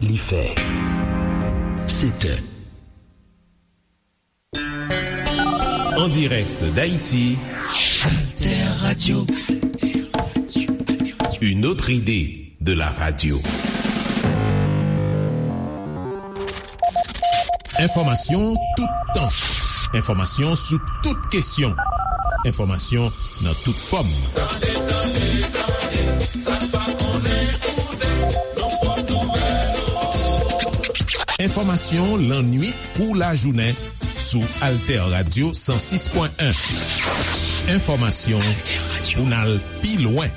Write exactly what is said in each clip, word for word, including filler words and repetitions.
li fè. Sèt è. En direct d'Haïti, Alter Radio. Une autre idée de la radio. Enfòmasyon toutan. Enfòmasyon sou tout kesyon. Enfòmasyon nan tout fòm. Tande, tande, tande, sa n pa konnen, koute, nan pwòp nouvèl. Enfòmasyon lannuit kou lajounen sou Alter Radio san sis pwen en. Enfòmasyon pou n al pi lwen.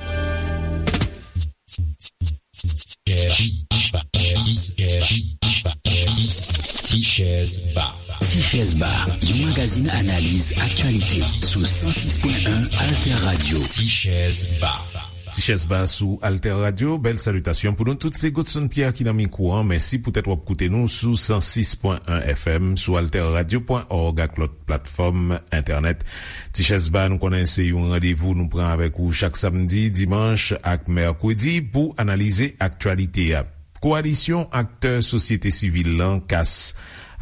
Tichèz Ba. Tichèz Ba, yon magazin analiz aktyalite sou san sis pwen en Alter Radio. Tichèz Ba. Tichèz Ba sou Alter Radio. Bèl salitasyon pou nou tout. Se Godson Pierre ki nan mikwo an. Mèsi poutèt w ap koute nou sou san sis pwen en F M, sou alter radio pwen org ak lòt platfòm entènèt. Tichèz Ba, nou konnen se yon randevou nou pran avèk ou chak samdi, dimanch ak mèkredi pou analize aktyalite a. Kowalisyon aktè sosyete sivil lan, kas,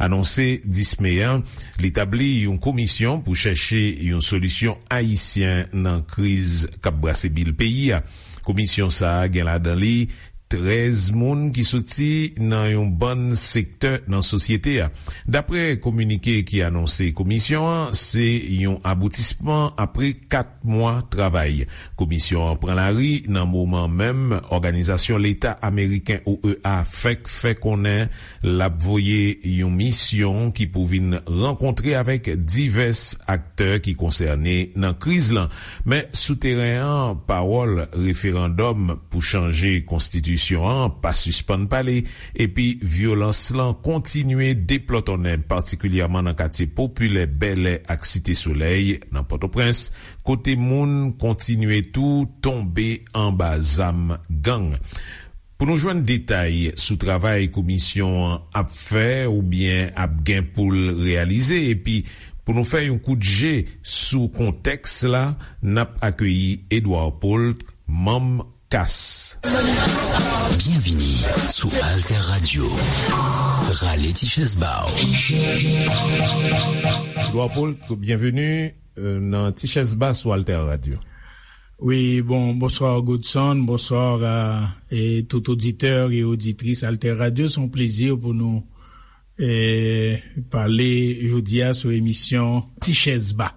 anonse dis me an, li tabli yon komisyon pou chèche yon solisyon ayisyen nan kriz k ap brase bil peyi a. Komisyon sa a gen ladan li trèz moun ki soti nan yon bann sektè nan sosyete a. Dapre kominike ki anonse komisyon an, se yon aboutisman apre kat mwa travay. Komisyon an pran lari nan moman menm òganizasyon leta ameriken, O E A, fèk fè konnen l ap voye yon misyon ki pou vin rankontre avèk divès aktè ki konsène nan kriz lan. Men sou teren an, pawòl referandòm pou chanje konstitisyon an pa sispann pale, epi vyolans lan kontinye deplòtonnen, patikilyèman nan katye popilè Bèlè ak Site Solèy nan Pòtoprens, kote moun kontinye tou tonbe anba zam gang. Pou nou jwenn detay sou travay komisyon an ap fè oubyen ap gen pou l reyalize, epi pou nou fè yon kout je sou kontèks la, n ap akeyi Edouard Paul, manm kas. Byenvini sou Alter Radio. Rale ti chèz ba w. Edouard Paul, byenveni, euh, nan Ti Chèz Ba sou Alter Radio. Wi, bon, bonswa Godson, bonswa a, e tout oditè e oditris Alter Radio. Se yon plezi pou nou, e, pale jodi a sou emisyon Ti Chèz Ba.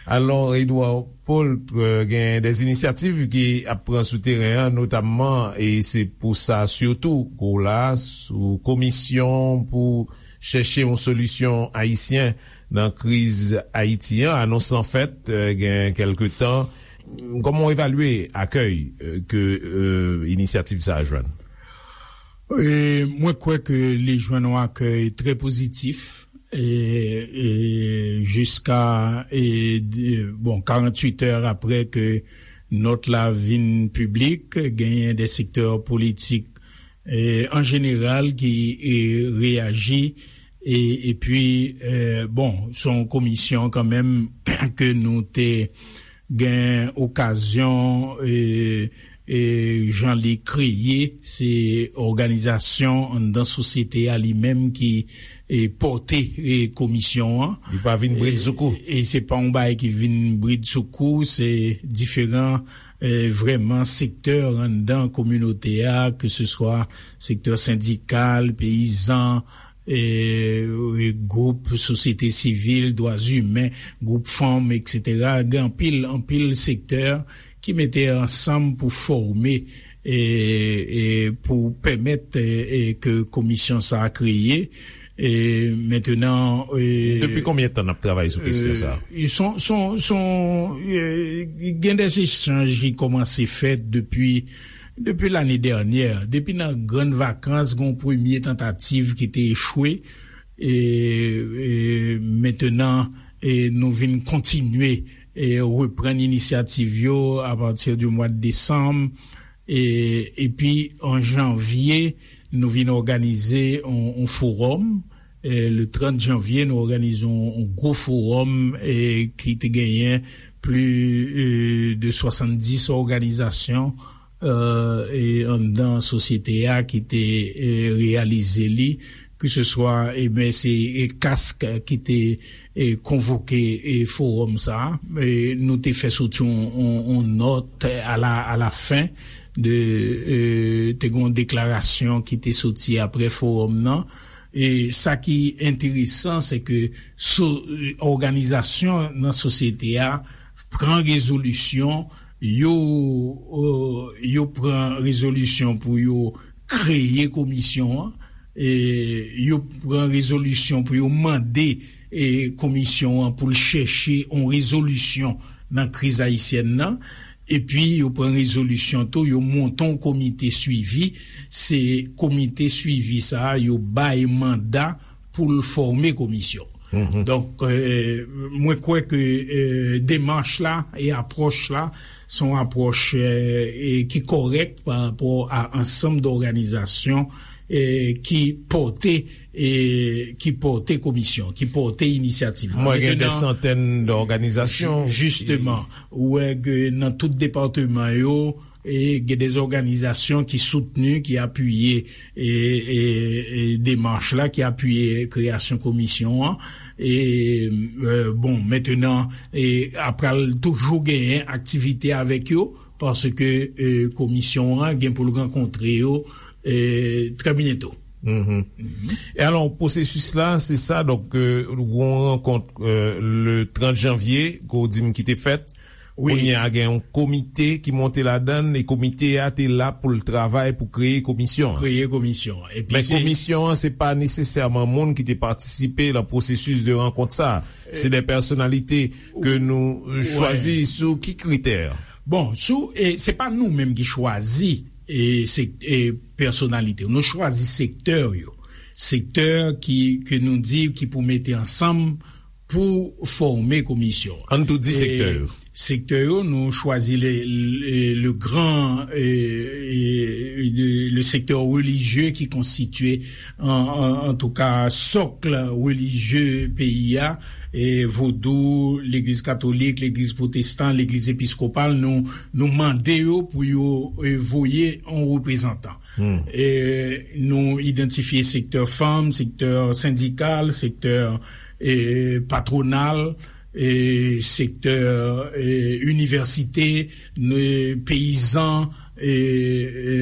Alò, Edouard Paul, e, gen de inisyativ ki ap pran sou teren an, notamman, e se pou sa sitou ke w la, sou komisyon pou chèche yon solisyon ayisyen nan kriz Ayiti an. Anons lan fèt, e, gen kèlke tan. Kòman w evalye akèy, e, ke, e, inisyativ sa a jwenn? E, mwen kwè ke li jwenn yon akèy trè pozitif. E, e, jiska, e, de, bon, karanntuit è apre ke nòt la vin piblik, genyen de sektè politik, e, an jeneral ki, e, reyaji, e, epi, e, bon, se yon komisyon kanmenm ke nou te gen okazyon, e, e, jan li kreye, se òganizasyon anndan sosyete a li menm ki, e, pòte, e, komisyon an. Li pa vin bridsoukou. E, e se pa yon bagay ki vin bridsoukou, se diferan, e, vrèman sektè anndan kominote a, ke se swa sektè sendikal, peyizan, e, e, gwoup sosyete sivil, dwa imen, gwoup fanm, etsetera. Gen anpil, anpil sektè ki mete ansanm pou fòme, e, e, pou pèmèt, e, e, ke komisyon sa a kreye. E, mentenan, e, depi konbyen tan n ap travay sou kesyon sa a? E, son, son, son, e, gen de echanj ki kòmanse fèt depi, depi lane dènyè. Depi nan grann vakans, gen yon premye tantativ ki te echwe. E, e, mentenan, e, nou vin kontinye, e, reprann inisyativ yo apati di mwa desanm. E, epi, an janvye, nou vin òganize yon, yon fowòm. E, le trant janvye, nou òganize yon, yon gwo fowòm, e, ki te genyen plis, e, de swasanndis òganizasyon, e anndan sosyete a ki te e reyalize li, keseswa e ben se e kask ki te e konvoke e fowòm sa a. E nou te fè soti yon, yon, yon nòt a la, a la fen de e te gen yon deklarasyon ki te soti apre fowòm nan. E sa ki enteresan, se ke so, òganizasyon nan sosyete a pran rezolisyon, yo, euh, yo pran rezolisyon pou yo kreye komisyon an, e yo pran rezolisyon pou yo mande e komisyon an pou l chèche yon rezolisyon nan kriz ayisyèn nan. Epi yo pran rezolisyon tou, yo monte yon komite swivi. Se komite swivi sa a, yo bay manda pou l fòme komisyon. Donk, euh, mwen kwè ke euh, demach la e apwòch la se yon apwòch euh, e ki kòrèk pa rapò a ansanm dòganizasyon e ki pòte e ki pòte komisyon, ki pòte inisyativ la. Mwen gen de Mentnan, santèn dòganizasyon. Jisteman, ou wè ke nan tout depatman yo, e gen de òganizasyon ki soutni, ki apiye e, e, e demach la, ki apiye kreyasyon komisyon an. E, e, bon, mentnan, e, apral toujou genyen aktivite avèk yo, paske e, komisyon an gen pou l rankontre yo e, trè byento. E alò, pwosesis la, se sa, donk, euh, yon rankont euh, le trant janvye, ke w di m ki te fèt. Wi. Kounye a gen yon komite ki monte ladan l, e komite a te la pou l travay pou kreye komisyon an. Kreye komisyon an. Epi Men se komisyon an, se pa nesesèman moun ki te patisipe nan pwosesis de rankont sa. Se de pèsonalite ke nou euh, chwazi sou ki kritè? Bon, sou, e, se pa nou menm ki chwazi e, se, e, pèsonalite yo. Nou chwazi sektè yo. Sektè ki, ke nou di ki pou mete ansanm pou fòme komisyon. Ann tou di sektè yo. Sektè yo, nou chwazi le, le, le gran, e, e, le, le sektè relijye ki konstitye an, an, antouka, sòk relijye peyi a, e, vodou, legliz katolik, legliz pwotestan, legliz episkopal, nou, nou mande yo pou yo e, voye yon reprezantan. E, nou idantifye sektè fanm, sektè sendikal, sektè e, patwonal, e, sektè e, inivèsite, e, peyizan, e, e,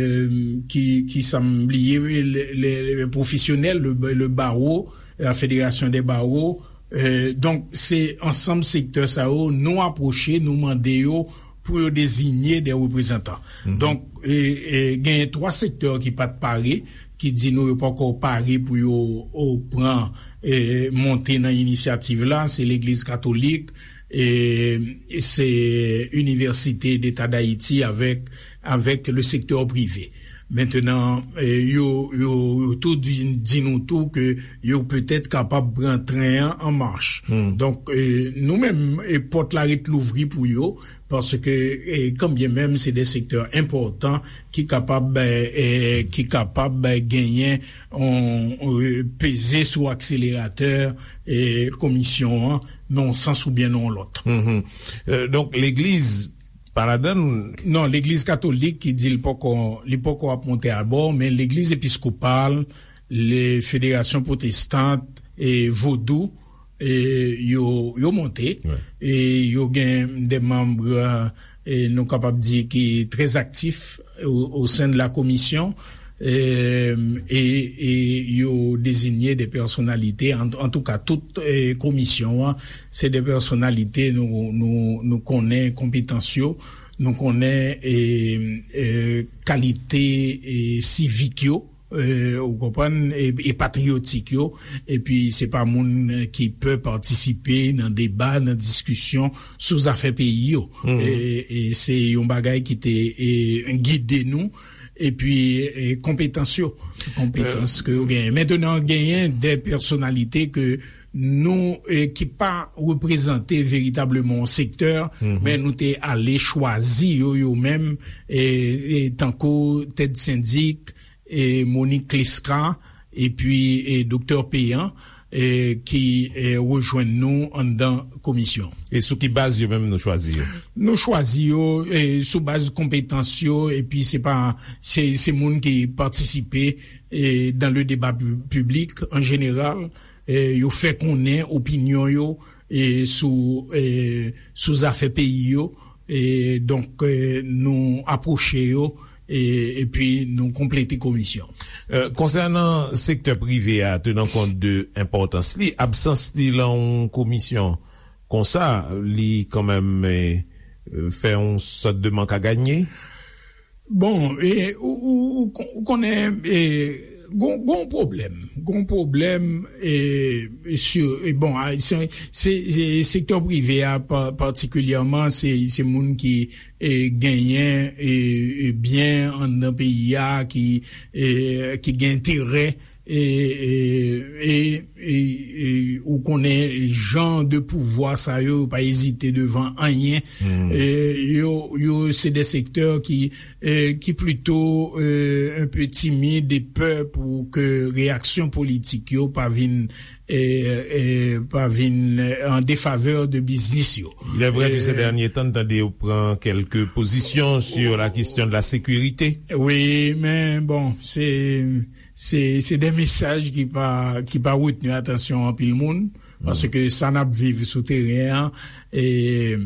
ki, ki sa m bliye, le, le, le pwofesyonèl, le, le bawo, la federasyon de bawo. E, donk, se ansanm sektè sa yo, nou apwoche, nou mande yo pou yo deziye de reprezantan. Donk, e, e, genyen twa sektè ki pa t pare, ki di nou yo poko pare pou yo o, pran e, monte nan inisyativ la, se legliz katolik, e, e se Inivèsite Deta Dayiti avèk, avèk le sektè prive. Mentnan, e, yo, yo, yo tou di, di nou tou ke yo petèt kapab pran tren an an mach. Donk, e, nou menm, e, pòt la ret louvri pou yo, paske e, kanbyen menm se de sektè enpòtan ki kapab e, e, ki kapab genyen on, on, peze sou akseleratè e, komisyon an nan yon sans oubyen nan yon lòt. Donk legliz pa ladann? Non, legliz katolik ki di li poko li poko ap monte abò, men legliz episkopal, le federasyon pwotestant e vodou, e yo, yo monte. E yo gen de manm, e nou kapab di, ki trè aktif o, o sen de la komisyon. E, e, e yo deziye de pèsonalite, an, antouka tout e, komisyon an se de pèsonalite nou, nou, nou konnen konpetans yo, nou konnen e, e, kalite e, sivik yo, e, ou konprann, e, e patriyotik yo. Epi se pa moun ki pè patisipe nan deba, nan diskisyon sou zafè peyi yo. E, e se yon bagay ki te e, gide nou. Epi e, konpetans yo, konpetans ke yo genyen. Mentnan, genyen de pèsonalite ke nou e, ki pa reprezante veritableman yon sektè, men nou te ale chwazi yo, yo menm, e, e tankou Ted Syndic, e Monique Clesca, epi e Doktè Péan. e, ki e, rejwenn nou anndan komisyon. E sou ki baz yo menm nou chwazi yo? Nou chwazi yo e, sou baz konpetans yo, epi se pa se, se moun ki patisipe e, dans le débat pu- public en général. E, yo fè konnen opinyon yo e, sou e, sou zafè peyi yo. E, donk e, nou apwoche yo e, epi nou konplete komisyon. E, konsènan sektè prive a, tenan kont de enpòtans li, absans li lan yon komisyon konsa, li kanmenm e, fè yon sòt de mank a ganye? Bon, e, ou, ou, ou kon- ou konnen e, gon, gon pwoblèm. Gon pwoblèm e, sur, e, bon, a, se, se, se sektè prive a pa- patikilyèman, se, se moun ki e, genyen e, e, byen anndan peyi a, ki e, ki gen enterè e, e, e, e, e, ou konnen jan de pouvwa sa yo, yo pa ezite devan anyen. E, yo, yo se de sektè ki e, ki plito e, un peu timid e pè pou ke reyaksyon politik yo pa vin e, e, pa vin e, en défaveur de biznis yo. Il est vrai que ces derniers temps, tande yo pran kèlke pozisyon sur la question de la sécurité. Wi, men bon, se se se de mesaj ki pa ki pa retni atansyon anpil moun, paske sa n ap viv sou teren an e,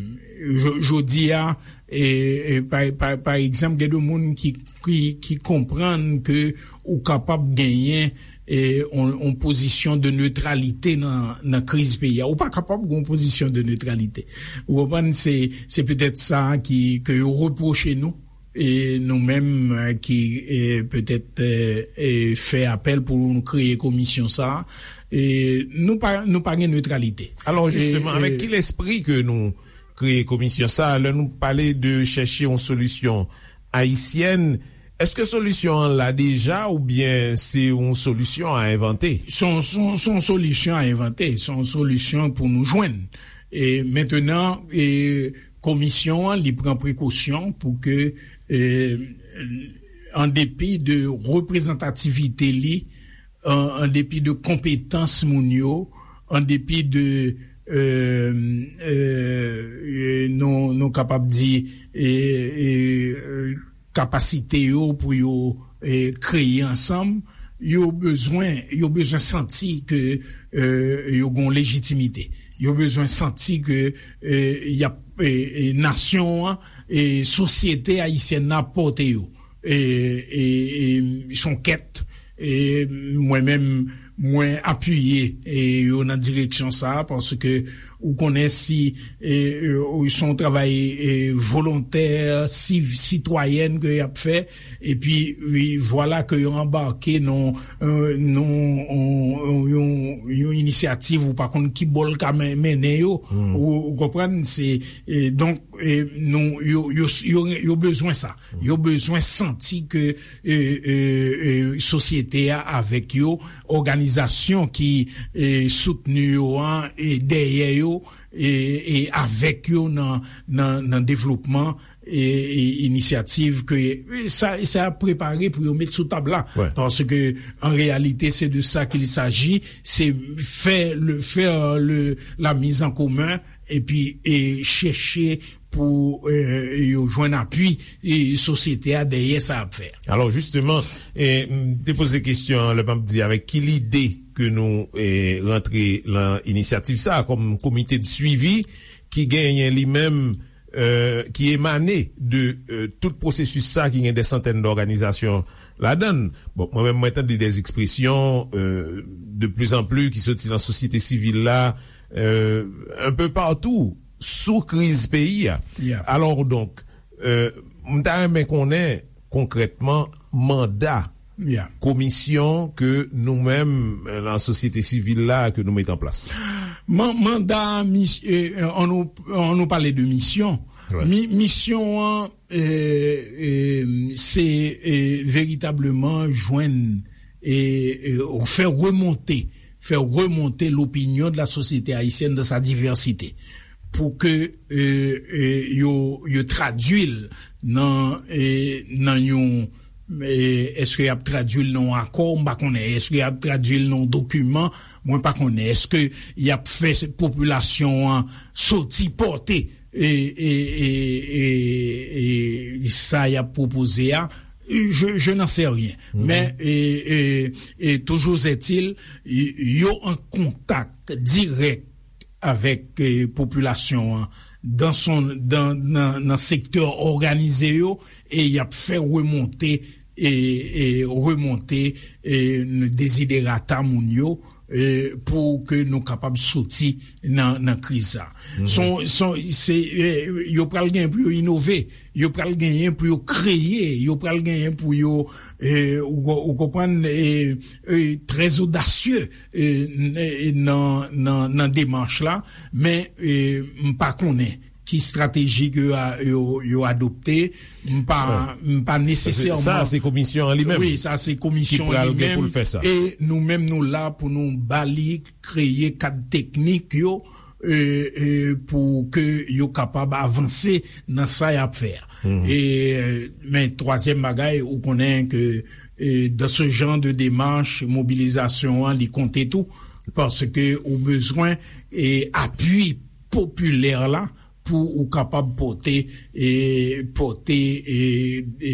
jo- jodi a e, e, pa, pa, pa egzanp, gen de moun ki ki, ki konprann ke ou kapab genyen e, on, on pozisyon de netralite nan, nan kriz peyi a. Ou pa kapab gen on pozisyon de netralite. Ou konprann? Se, se petèt sa ki, ke yo repwoche nou. E nou menm e, ki e, petèt e, e, fè apèl pou nou kreye komisyon sa a, e, nou pa, nou pa gen netralite. Alò, jisteman, avèk ki lespri ke nou kreye komisyon sa a, lè nou pale de chèche yon solisyon ayisyèn, èske solisyon an la deja oubyen se yon solisyon a envante? Se yon, se yon, se yon solisyon a envante, se yon solisyon pou nou jwenn. E mentenan, e, komisyon an, li pran prekosyon pou ke, e, an depi de reprezantativite li, an, an depi de konpetans moun yo, an depi de, e, e, e, nou, nou kapab di, e, e, e, kapasite yo pou yo e, kreye ansanm, yo bezwen, yo bezwen santi ke e, yo gen lejitimite. Yo bezwen santi ke e, y ap, e, e, nasyon an, e, sosyete ayisyèn nan ap pòte yo. E, e, e, se yon kèt, e, mwen menm, mwen apiye e, yo nan direksyon sa a, paske ou konnen si e, e, se yon travay e, volontè, siv, sitwayèn ke y ap fè, epi wi, vwala ke yo anbake nan e, nan yon, yon, yon inisyativ ou pa konn ki bò l ka men- mennen yo. Ou, ou konprann? Se e, donk e, nou, yo, yo, yo, yo bezwen sa. Yo bezwen santi ke e, e, e, sosyete a avèk yo, òganizasyon ki e, soutni yo an e dèyè yo e, e avèk yo nan, nan, nan devlopman e, e inisyativ ke e, sa, sa ap prepare pou yo met sou tab la. Paske an reyalite, se de sa qu'il s'agit, se fè le, fè le, la mise en commun epi e chèche pou e, yo jwenn apui e sosyete a dèyè sa y ap fè. Alò, jisteman, e, m te poze kesyon an lè m ap di avèk ki lide ke nou e, rantre lan inisyativ sa a kòm komite de swivi ki genyen li menm, e, ki emane de e, tout pwosesis sa a ki gen de santèn dòganizasyon ladan l. Bon, mwen menm, mwen tande de ekspresyon e, de pli an pli ki soti lan sosyete sivil la, e, un peu partout, sou kriz peyi a. Alò, donk, e, m ta renmen konnen konkrètman manda komisyon ke nou menm, e, lan sosyete sivil la, ke nou met an plas. Man- manda, mis- e, an nou, an nou pale de misyon. Mi- misyon an, e, e, se e, veritableman jwenn e, e, fè remonte, fè remonte l'opinion de la société haïtienne dans sa diversité, pou ke e, e, yo, yo tradui l nan, e, nan yon E, èske y ap tradui l nan yon akò? M pa konnen. Èske y ap tradui l nan yon dokiman? Mwen pa konnen. Èske y ap fè popilasyon an soti pòte e, e, e, e, e sa y ap pwopoze a? Je, je n'en sais rien. Men, e, e, e, toujours est-il, y- yo an kontak dirèk avèk, e, popilasyon an dan son, dan, nan, nan sektè òganize yo, e y ap fè remonte, e, e remonte, e, deziderata moun yo, e, pou ke nou kapab soti nan, nan kriz sa. Son, son, se, e, yo pral gen pou yo inove, yo pral genyen pou yo kreye, yo pral genyen pou yo, e, ou, ou konprann, e, e, trè odasye, e, n- e, nan, nan, nan demach la, men, e, m pa konnen ki estrateji ke yo a- yo, yo adopte, m pa, m pa nesesèman. Sa, se komisyon an li menm. Wi, sa, se komisyon an li menm. Ki pral gen pou l fè sa. E nou menm, nou la pou nou ba li, kreye kad teknik yo, e, e, pou ke yo kapab avanse nan sa y ap fè a. E, men, twazyèm bagay, ou konnen ke, e, dans ce genre de démarche, mobilizasyon an, li konte tou, paske ou bezwen, e, apui popilè la pou ou kapab pote, e, pote, e, e,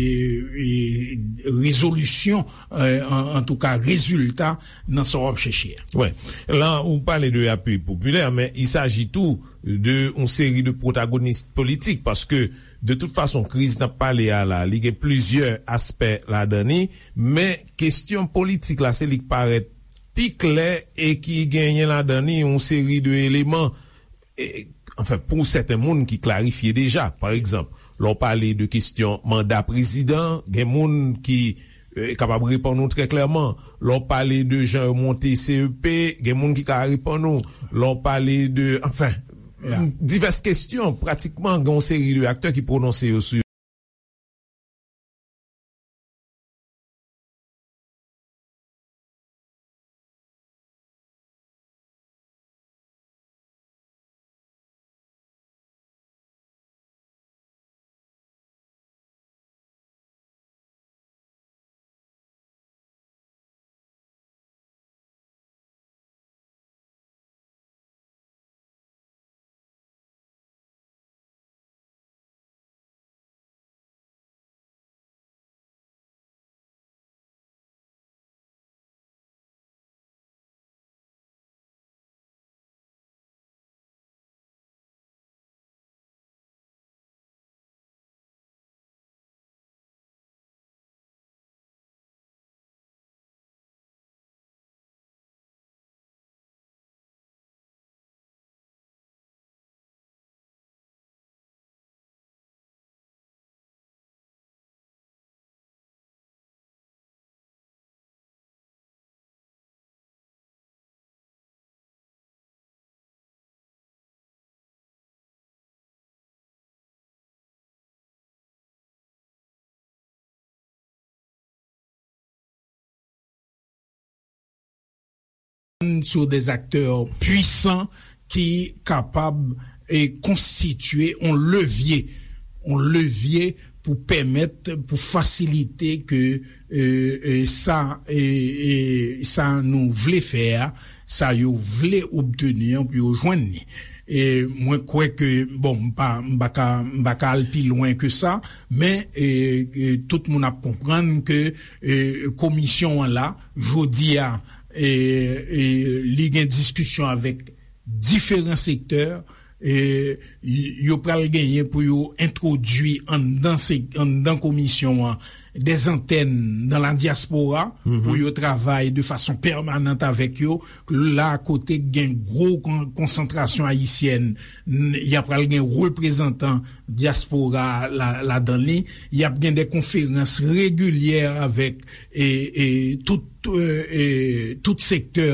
e, rezolisyon, e, an, antouka, rezilta nan sa w ap chèche a. Wè. La, ou pale de apui popilè, men il s'agit tou de yon seri de pwotagonis politik, paske de tout fason, kriz n ap pale a la, li gen plizyè aspè ladan li, men kesyon politik la, se li k parèt pi klè e ki genyen ladan li yon seri de eleman, e, anfen, pou sèten moun ki klarifye deja. Pa egzanp, lè w pale de kesyon manda prezidan, gen moun ki, e, kapab reponn ou trè klèman. Lè w pale de jan yo monte C E P, gen moun ki ka reponn ou. Lè w pale de, anfen, divès kesyon, pratikman, gen yon seri de aktè ki pwononse yo sou sur des acteurs puissants ki kapab, e, konstitye yon levye, yon levye pou pèmèt, pou fasilite ke, e, e, sa, e, e, sa nou vle fè a, sa yo vle obteni an pou yo jwenn li. E mwen kwè ke, bon, m pa, m pa ka, m pa ka al pi lwen ke sa, men, e, e, tout moun ap konprann ke, e, komisyon an la, jodi a, e, e, li gen diskisyon avèk diferan sektè, e, y- yo pral genyen pou yo entwodui anndan se- anndan komisyon an dè antèn nan la dyaspora pou yo travay de fason pèmanant avèk yo. La kote gen gwo kon- konsantrasyon ayisyèn, n- y ap pral gen reprezantan dyaspora la ladan li. Y ap gen de konferans regilyè avèk, e, e, tout, e, e, tout sektè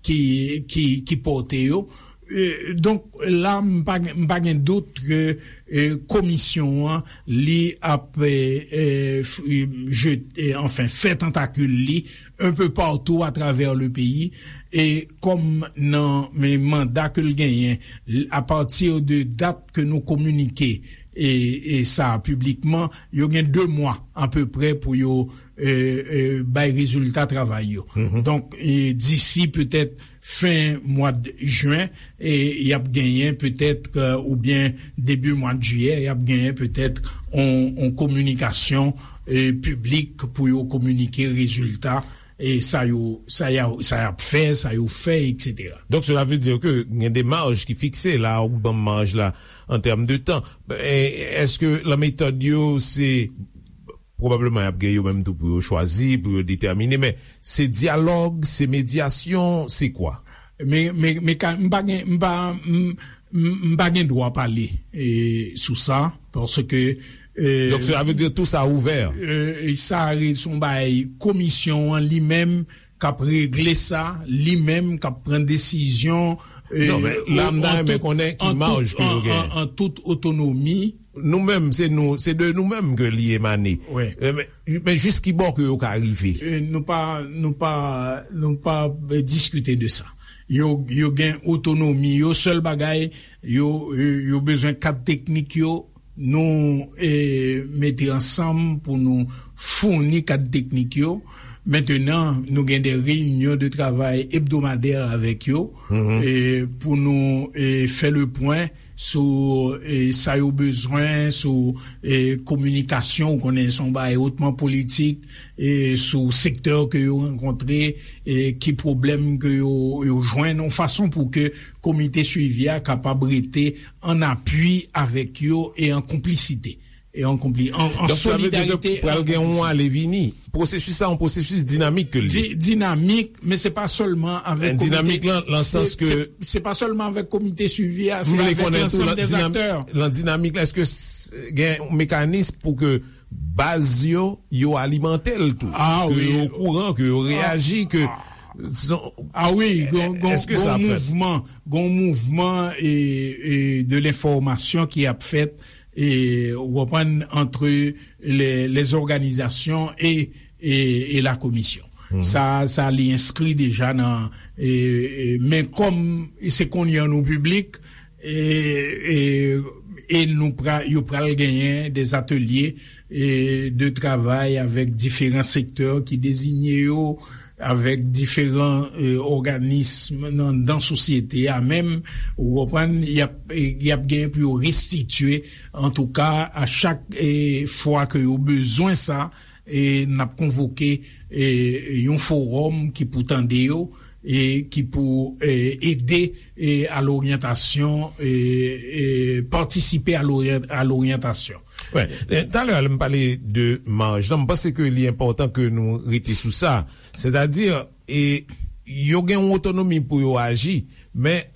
ki, ki, ki pòte yo. E, donk, la, m pa gen, m pa gen dout ke, e, komisyon an, li ap, e, e, f- e, jete, anfen, fè tantakil li un peu partout à travers le pays. E kòm nan men manda ke l genyen, l- à partir de dat ke nou kominike, e, e sa piblikman, yo gen de mwa apeprè pou yo e, e, bay rezilta travay yo. Donk, e, disi petèt fen mwa de jen, e, y ap genyen petèt, e, oubyen debi mwa de jiyè, y ap genyen petèt on, on kominikasyon e, piblik pou yo kominike rezilta e sa yo, sa y a, sa y ap fè, sa yo fè, etsetera. Donk, sela vle di ke gen de maj ki fikse la, ou ban m maj la an tèm de tan. E, èske lan metòd yo, se pwobableman y ap gen yo menm tou pou yo chwazi, pou yo detèmine, men se dyalòg, se medyasyon, se kwa? Men, men, men ka, m pa gen, m pa, m, m, m pa gen dwa pale e, sou sa, paske e, Donk, sela vle di tou sa ouvè. E, sa se yon bagay komisyon an li menm k ap regle sa, li menm k ap pran desizyon e, Non, men la, m ta renmen konnen ki maj ke yo gen. An tout otonomi. Nou menm, se nou, se de nou menm ke li emane. E, men, men jis ki bò ke yo ka rive? E, nou pa, nou pa, nou pa, e, diskite de sa. Yo, yo gen otonomi yo, sèl bagay, yo, yo, yo bezwen kad teknik yo, nou e, mete ansanm pou nou founi kad teknik yo. Mentenan, nou gen de reyinyon de travay ebdomadè avèk yo e, pou nou e, fè le pwen sou e, sa yo bezwen, sou e, kominikasyon, ou konnen se yon bagay otman politik, e, sou sektè ke yo rankontre, e, ki pwoblèm ke yo, yo jwenn, yon fason pou ke komite swivi a kapab rete an apui avèk yo e an konplisite. E an konpli, an, an solidarite. Donk, sa vle di ke pral gen yon ale vini. Pwosesis sa, yon pwosesis dinamik ke l ye. Di-, dinamik, men se pa sèlman avèk komite. Dinamik lan, lan sans ke se, se pa sèlman avèk komite swivi a, se avèk lansanm dè aktè. Lan dinamik la, èske s-, gen yon mekanis pou ke baz yo, yo alimante l tou? Ke yo okouran, ke yo reyaji, ke A wi, gon, gon, gon mouvman, gon mouvman e, e de lenfòmasyon ki ap fèt, e, ou konprann, entre les, les organisations et, et, et la commission. Sa, sa li enskri deja nan, e, e, men kòm se kounye a nou piblik, e, e, e nou pra-, yo pral genyen de atelye e, de travay avèk diferan sektè ki deziye yo, avèk diferan e, òganism nan, nan sosyete a menm, ou konprann, y ap, e, y ap genyen pou yo restitye, antouka, a chak e, fwa ke yo bezwen sa, e, n ap konvoke e, yon fowòm ki pou tande yo, e ki pou e, ede e, a loryantasyon, e, e patisipe a loryan-, a loryantasyon. Wè, e, talè a lè m pale de maj lan, m panse ke li enpòtan ke nou rete sou sa. Sètadi, e, yo gen yon otonomi pou yo aji, men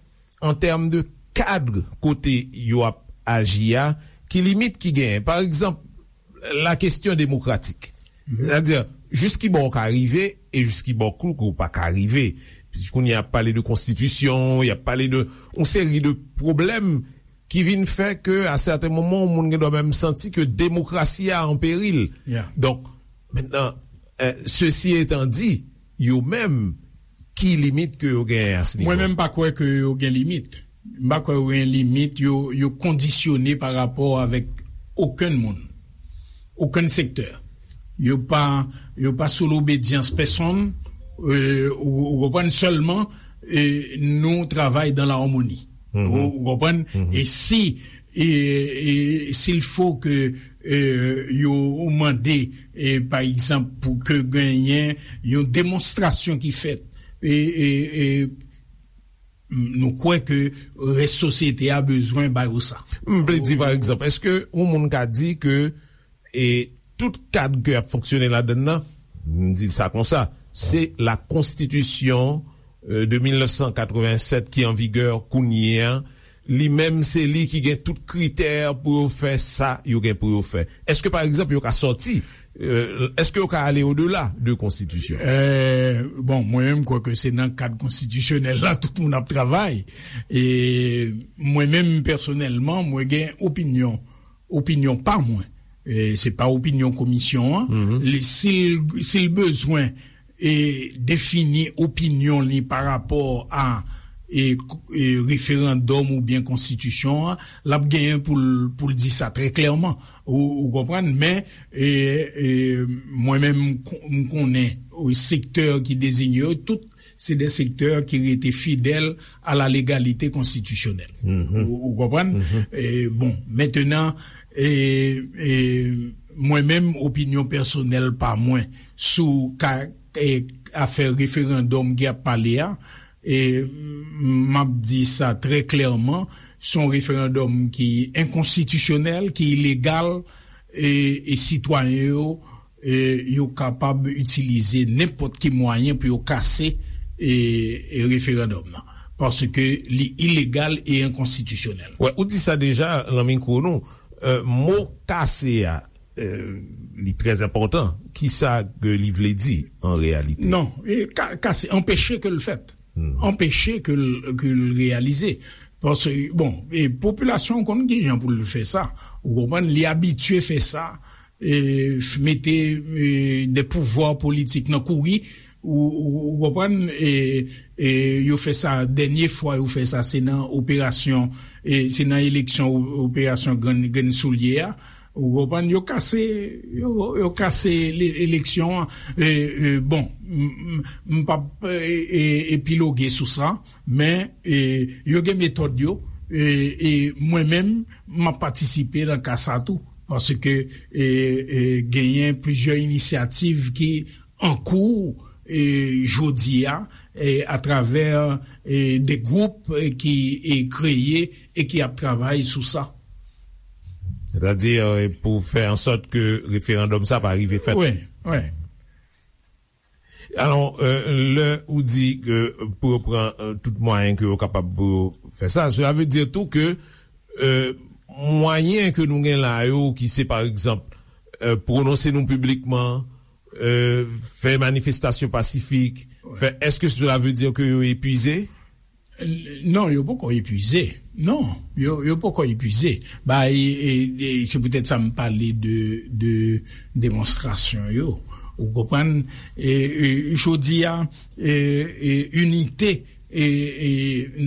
an tèm de kad kote yo ap aji a, ki limit ki genyen? Pa egzanp, la kesyon demokratik. Sètadi, jis ki bò w ka rive e jis ki bò ke w pa ka rive. Kounye a y ap pale de konstitisyon, y ap pale de yon seri de pwoblèm ki vin fè ke, a sèten moman, yon moun gen dwa menm santi ke demokrasi a an peril. Donk, mentnan, e, sesi etan di, yo menm, ki limit ke yo genyen a se nivo? Mwen menm, m pa kwè ke yo gen limit. M pa kwè yo gen limit, yo, yo kondisyone pa rapò avèk okenn moun, okenn sektè. Yo pa, yo pa sou lobedyans pèsonn, e, ou, ou konprann, sèlman, e, nou travay dan la amoni. Ou, ou konprann? E si, e, e, s'il faut que, e, yo mande, e, pa egzanp, pou ke genyen yon demonstrasyon ki fèt, e, e, e, nou kwè ke rès sosyete a bezwen ba yo sa. M vle di, pa egzanp, èske yon moun ka di ke, e, tout kad ke y ap fonksyone ladann nan, m di sa konsa, se la konstitisyon, e, de mil nèf san katrevennsèt ki an vigè kounye a, li menm se li ki gen tout kritè pou yo fè sa yo gen pou yo fè? Èske, pa egzanp, yo ka sòti, e, èske yo ka ale odela de konstitisyon? E, bon, mwen menm, m kwè ke se nan kad konstitisyonèl la tout moun ap travay. E mwen menm, pèsonèlman, mwen gen opinyon, opinyon pa mwen. E se pa opinyon komisyon an. Li, si l, si l bezwen e defini opinyon li pa rapò a e, e referandòm oubyen konstitisyon an, l ap genyen pou l, pou l di sa trè klèman. Ou, ou konprann? Men, e, e, mwen menm, m kon-, m konnen, e, sektè ki deziye yo, tout se de sektè ki rete fidèl a la légalité constitutionnelle. Ou, ou konprann? E, bon, mentenan, e, e, mwen menm, opinyon pèsonèl pa mwen sou ka, e, afè referandòm ki ap pale a, e, m ap di sa trè klèman, se yon referandòm ki enkonstitisyonèl, ki ilegal, e, e sitwayen yo, e, yo kapab itilize nenpòt ki mwayen pou yo kase, e, e referandòm nan. Paske li ilegal e enkonstitisyonèl. Wè, ou di sa deja nan mikwo nou. E, mo kase a, e, li trè enpòtan. Kisa ke li vle di an reyalite? Non, e, ka-, kase, anpeche ke l fèt. Anpeche ke l, ke l reyalize. Paske, bon, e popilasyon konn kijan pou l fè sa. Ou konprann, li abitye fè sa, e, f-, mete, e, de pouvwa politik nan kouri, ou, ou, ou konprann, e, e, yo fè sa, dènye fwa yo fè sa, se nan operasyon, e, se nan eleksyon o-, operasyon Grenn, Grenn Soulye a, ou konprann, yo kase, yo, yo kase le-, eleksyon an. E, e, bon, m, m, m p ap, e, e, epiloge sou sa, men, e, yo gen metòd yo, e, e mwen menm, m ap patisipe nan ka sa tou, paske, e, e, genyen plizyè inisyativ ki an kou, e, jodi a, e, atravè, e, de gwoup, e, ki, e, kreye e ki ap travay sou sa. Sètadi, e, pou fè an sòt ke referandòm sa pa rive fèt. Wi, wi. Alò, e, lè ou di ke pou yo pran, e, tout mwayen ke yo kapab pou yo fè sa, sela vle di tou ke, e, mwayen ke nou gen la yo, ki se, pa egzanp, e, pwononse nou piblikman, e, fè manifestasyon pasifik, fè, èske sela vle di ke yo epuize? Non, yo poko epuize. Non, yo, yo poko epuize. Ba, e, e, e, se poutèt sa m pale de, de demonstrasyon yo. Ou konprann? E, e, jodi a, e, e, inite, e, e,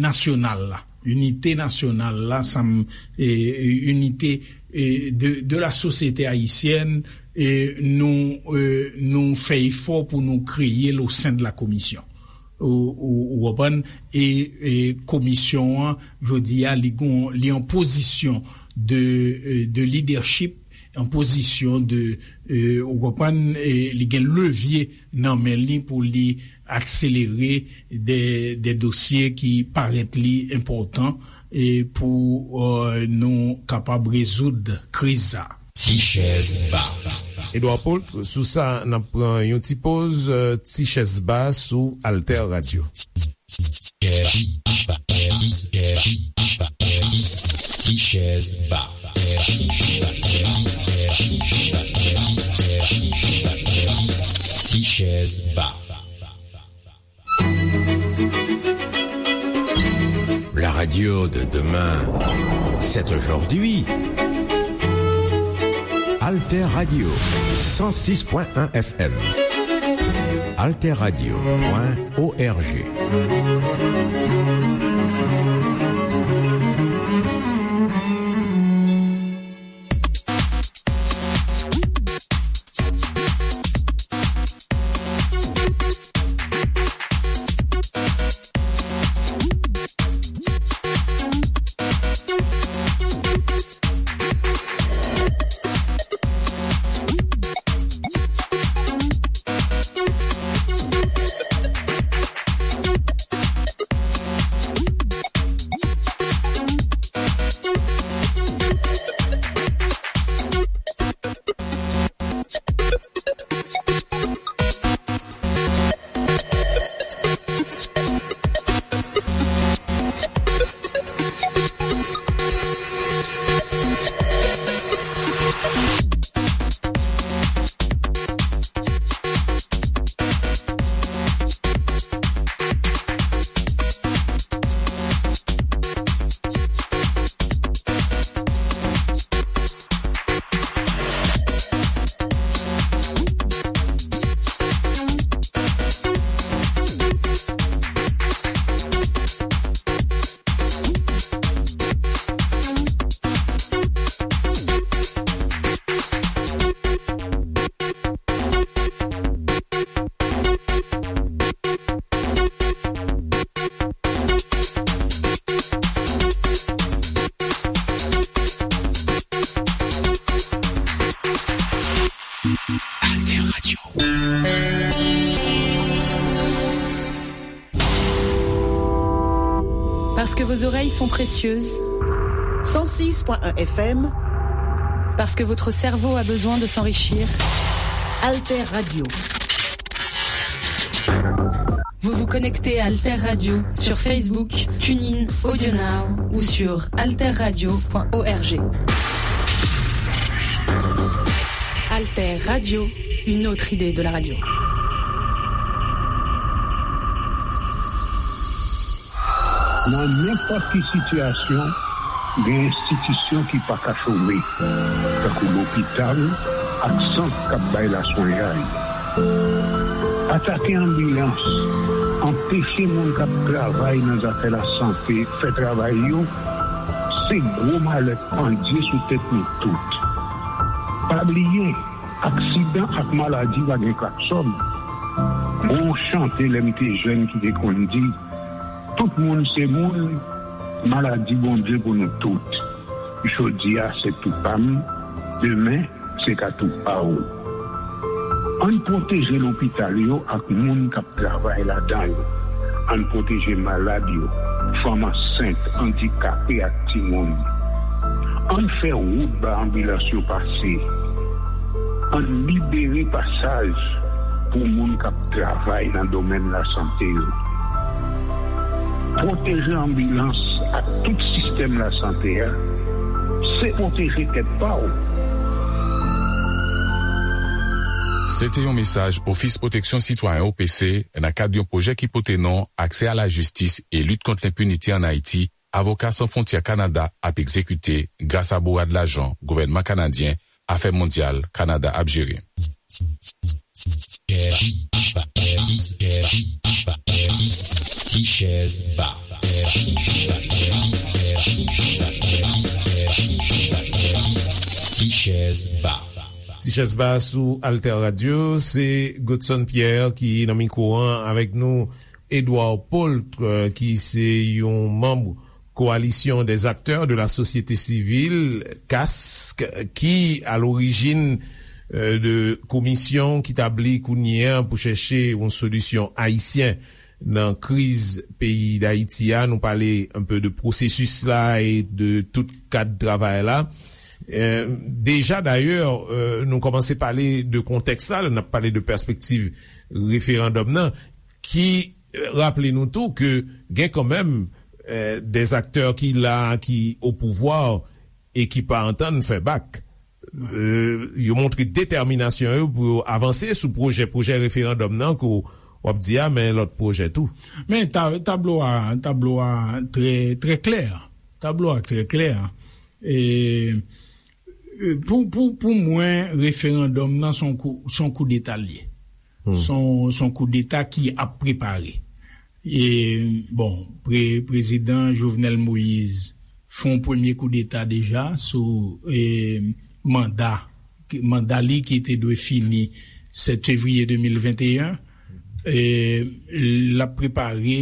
nasyonal la. Inite nasyonal la, sa m, e, e, inite, e, de, de la sosyete ayisyèn, e, nou, e, nou fè efò pou nou kreye l o sen de la komisyon. Ou, ou, ou konprann? E, e komisyon an, jodi a, li gon, li an pozisyon de, e, de lidèchip, an pozisyon de, e, ou konprann, e li gen levye nan men li pou li akselere de, de dosye ki parèt li enpòtan, e pou, e, nou kapab rezoud kriz sa. Ti chèz ba. Edouard Paul, sou sa, n ap pran yon ti poz, e, ti chèz ba sou Alter Radio. Ti chèz ba. Ti chèz ba. La radio de demain, c'est aujourd'hui. Alter Radio, cent six point un F M. Alter Radio point O R G. Parce que vos oreilles sont précieuses. Cent six point un F M. Parce que votre cerveau a besoin de s'enrichir. Alter Radio. Vous vous connectez à Alter Radio sur Facebook, TuneIn, AudioNow ou sur alterradio point org. Alter Radio, une autre idée de la radio. Nan nenpòt ki sitiyasyon, gen enstitisyon ki pa ka chome, tankou lopital ak sant k ap bay laswenyay. Atake anbilans, anpeche moun k ap travay nan zafè lasante fè travay yo, se gwo malè k pandye sou tèt nou tout. Pa bliye, aksidan ak maladi pa gen klaksòn. Gon chante lè m te jèn ki te konn di, tout moun se moun, maladi Bondye pou nou tout. Jodi a se tou pa m, demen se ka tou pa w. Ann pwoteje lopital yo ak moun k ap travay ladan yo. Ann pwoteje malad yo, fanm ansent, andikape ak timoun. Ann fè wout ba anbilans yo pase. Ann libere pasaj pou moun k ap travay nan domèn lasante yo. Pwoteje anbilans ak tout sistèm lasante a, se pwoteje tèt pa w. Se te yon mesaj Ofis Pwoteksyon Sitwayen, O P C, nan kad yon pwojè ki pote non Aksè a la jistis e lit kont lenpinite ann Ayiti, Avoka San Fwontyè Kanada ap egzekite gras a bourad lajan gouvènman kanadyen Afè Mondyal Kanada ap jere. Ti chèz ba. Ti chèz ba. Ti chèz ba sou Alter Radio, se Godson Pierre ki nan mikwo an avèk nou, Edouard Paultre, ki se yon manm Coalition des acteurs de la société civile, kask, ki a lorijin, euh, de komisyon ki tabli kounye a pou chèche yon solisyon ayisyen nan kriz peyi Dayiti a. Nou pale un peu de pwosesis la e de tout kad travay la. Euh, deja, dayè, euh, nou kòmanse pale de kontèks la, lè n ap pale de pèspektiv referandòm nan, ki, euh, raple nou tou ke gen kanmenm, euh, des acteurs ki la, ki o pouvwa e ki pa antann fè bak. Euh, yo montre detèminasyon yo pou yo avanse sou pwojè, pwojè referandòm nan ke w ap di a, men lòt pwojè tou. Men ta-, tablo a, tablo a trè, trè klè. Tablo a trè klè. E, e, pou, pou, pou mwen, referandòm nan se yon kou, se yon koudeta l ye. Hmm. Se yon, se yon koudeta ki ap prepare. E, bon, pre-, prezidan Jovenel Moïse fè yon premye koudeta deja sou, e, manda, manda li ki te dwe fini sèt fevriye de mil venteyen. E, l ap prepare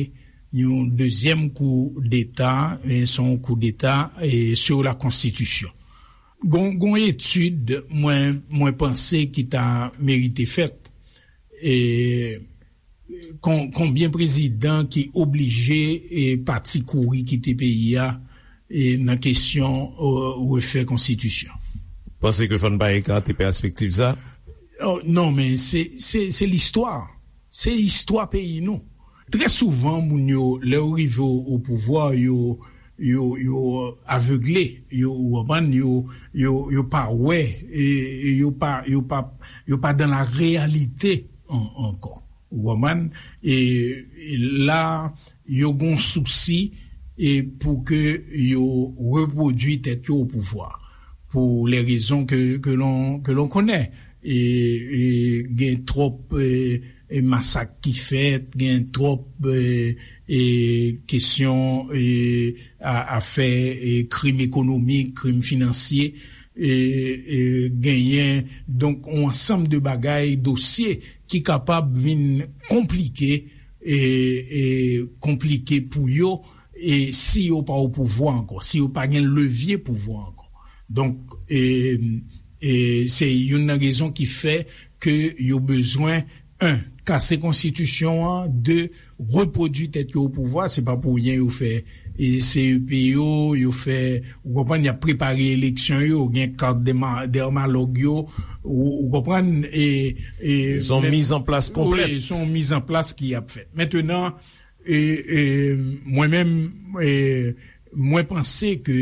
yon dezyèm koudeta, e, se yon koudeta, e, sur la konstitisyon. Gon, gon etid, mwen, mwen panse ki ta merite fèt. E, kon-, konbyen prezidan ki oblije, e, pati kouri kite peyi a, e, nan kesyon, e, refè konstitisyon? Panse ke fò n pa ekate pèspektiv sa? Oh, non, men se, se, se listwa. Se istwa peyi nou. Trè souvan, moun yo, lè yo rive o, o pouvwa, yo, yo, yo avegle, yo, ou konprann, yo, yo, yo pa wè, e, e yo pa, yo pa, yo pa dans la réalité an-, ankò. Ou konprann? E, e la, yo gon sousi, e pou ke yo repwodui tèt yo o pouvwa. Pou lè rezon ke, ke lon, ke lon konnen. E, e gen twòp, e, e masak ki fèt, gen twòp, e, e kesyon, e, a, afè, e krim ekonomik, krim finansye, e, e genyen, donk, yon ansanm de bagay, dosye ki kapab vin konplike, e, e konplike pou yo, e si yo pa o pouvwa ankò, si yo pa gen levye pouvwa ankò. Donk, e, e se youn nan rezon ki fè ke yo bezwen, en, kase konstitisyon an, de repwodui tèt yo o pouvwa. Se pa pou ryen yo fè e C E P yo, yo fè, ou konprann, y ap prepare eleksyon yo, gen kat dèma- dèmalòg yo, ou, ou konprann, e, e, Se yon men- mizanplas konplèt. Wi, se yon mizanplas ki ap fèt. Mentenan, e, e, mwen menm, e, mwen panse ke,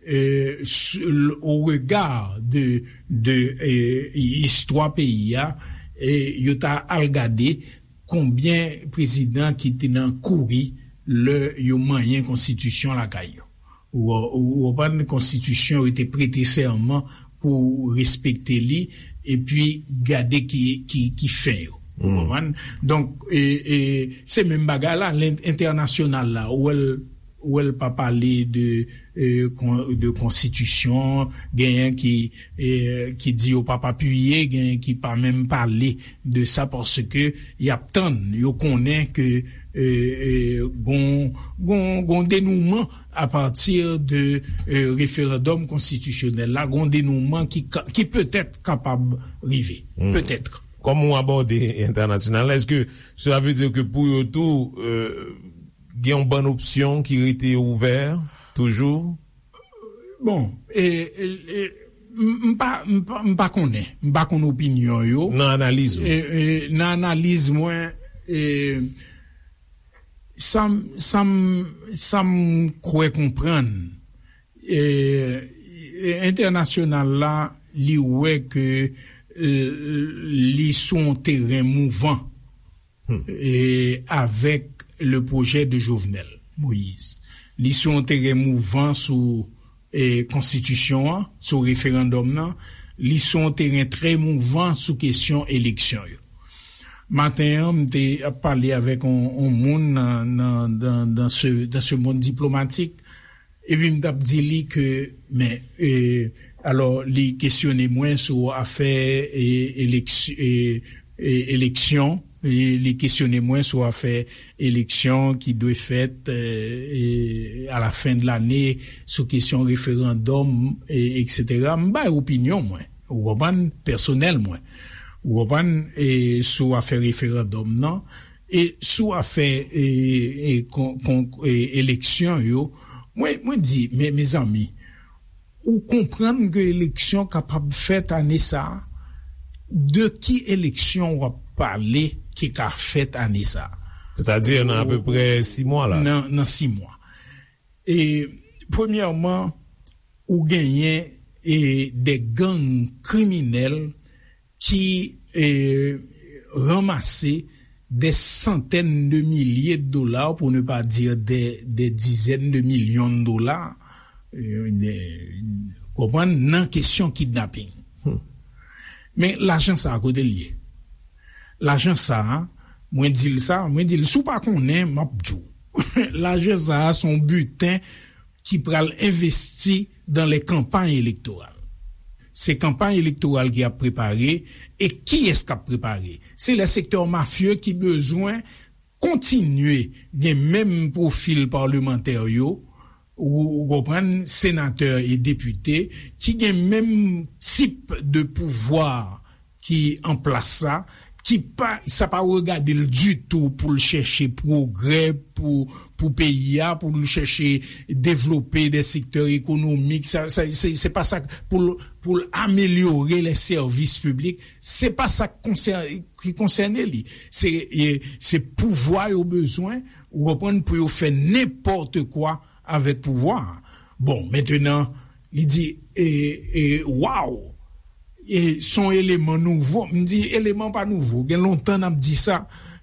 e, s- l- o rega de, de, e, istwa peyi a, e, yo ta al gade konbyen prezidan ki te nan kouri lè yo manyen konstitisyon lakay yo. Ou, ou, ou konprann, konstitisyon yo te prete sèman pou respekte li, epi gade ki, ki, ki fen yo. Ou konprann? Donk, e, e, se menm bagay la, len- entènasyonal la, ou wè l, ou wè l pa pale de, e, kon- de konstitisyon, genyen ki, e, ki di yo p ap apiye, genyen ki pa menm pale de sa, paske y ap tann, yo konnen ke, e, e, gon, gon, gon denouman apati de, e, referandòm konstitisyonèl la, gon denouman ki, ka- ki petèt kapab rive. Petèt. Kòman w abòde entènasyonal la? Èske sela vle di ke pou yo tou, e, gen yon bann opsyon ki rete ouvè toujou? Bon, e, e, e, m m pa, m pa, m pa konnen. M pa konn opinyon yo. Nan analiz ou? E, e, nan analiz mwen, e, sa m, sa m, sa m kwè konprann, e, e, entènasyonal la, li wè ke, e, li sou yon teren mouvan, e, avèk le pwojè de Jovenel Moïse. Li sou yon teren mouvan sou, e, konstitisyon an, sou referandòm nan. Li sou yon teren trè mouvan sou kesyon eleksyon yo. Maten an, m te ap pale avèk yon, yon moun nan, nan, dans, dans ce, dans ce monde diplomatique. Epi m t ap di li ke, men, e, alò, li kesyone mwen sou afè, e, eleks- e, e, eleksyon. Li, li kesyone mwen sou afè eleksyon ki dwe fèt, e, e, a la fen de lane, sou kesyon referandòm, e, etsetera. M bay opinyon mwen, ou konprann, pèsonèl mwen. Ou konprann, e, sou afè referandòm nan, e sou afè, e, e, kon- kon- e, eleksyon yo, mwen, mwen di, men, mezanmi, ou konprann ke eleksyon kapab fèt ane sa a? De ki eleksyon w ap pale ki ka fèt ane sa a? Sètadi nan apeprè sis mwa la. Nan, nan sis mwa. E, premyèman, ou genyen, e, de gang kriminèl ki, e, ranmase de santèn de milye de dola, pou ne pa di de, de dizèn de milyon de dola, e, de, konprann, nan kesyon kidnaping. Men lajan sa a, kote l ye? Lajan sa a, mwen di l sa, mwen di l, si w pa konnen, m ap di w. Lajan sa a, se yon biten ki pral envesti dans les campagnes électorales. Se kanpay elektoral ki ap prepare, e kiyès k ap prepare? Se lè sektè mafye ki bezwen kontinye gen menm pwofil palmantè yo, ou, ou konprann, senatè e depite, ki gen menm tip de pouvwa ki an plas sa, ki pa, sa pa regade l ditou pou l chèche pwogrè pou, pou peyi a, pou l chèche devlope de sektè ekonomik, sa, sa, se, se pa sa k-, pou l, pou l amelyore les services publics, se pa sa k konsè-, ki konsène li. Se, e, se pouvwa yo bezwen, ou konprann, pou yo fè nenpòt kwa avèk pouvwa a. Bon, mentenan, li di, e, e, waw! E, se yon eleman nouvo. M di, eleman pa nouvo. Gen lontan n ap di sa.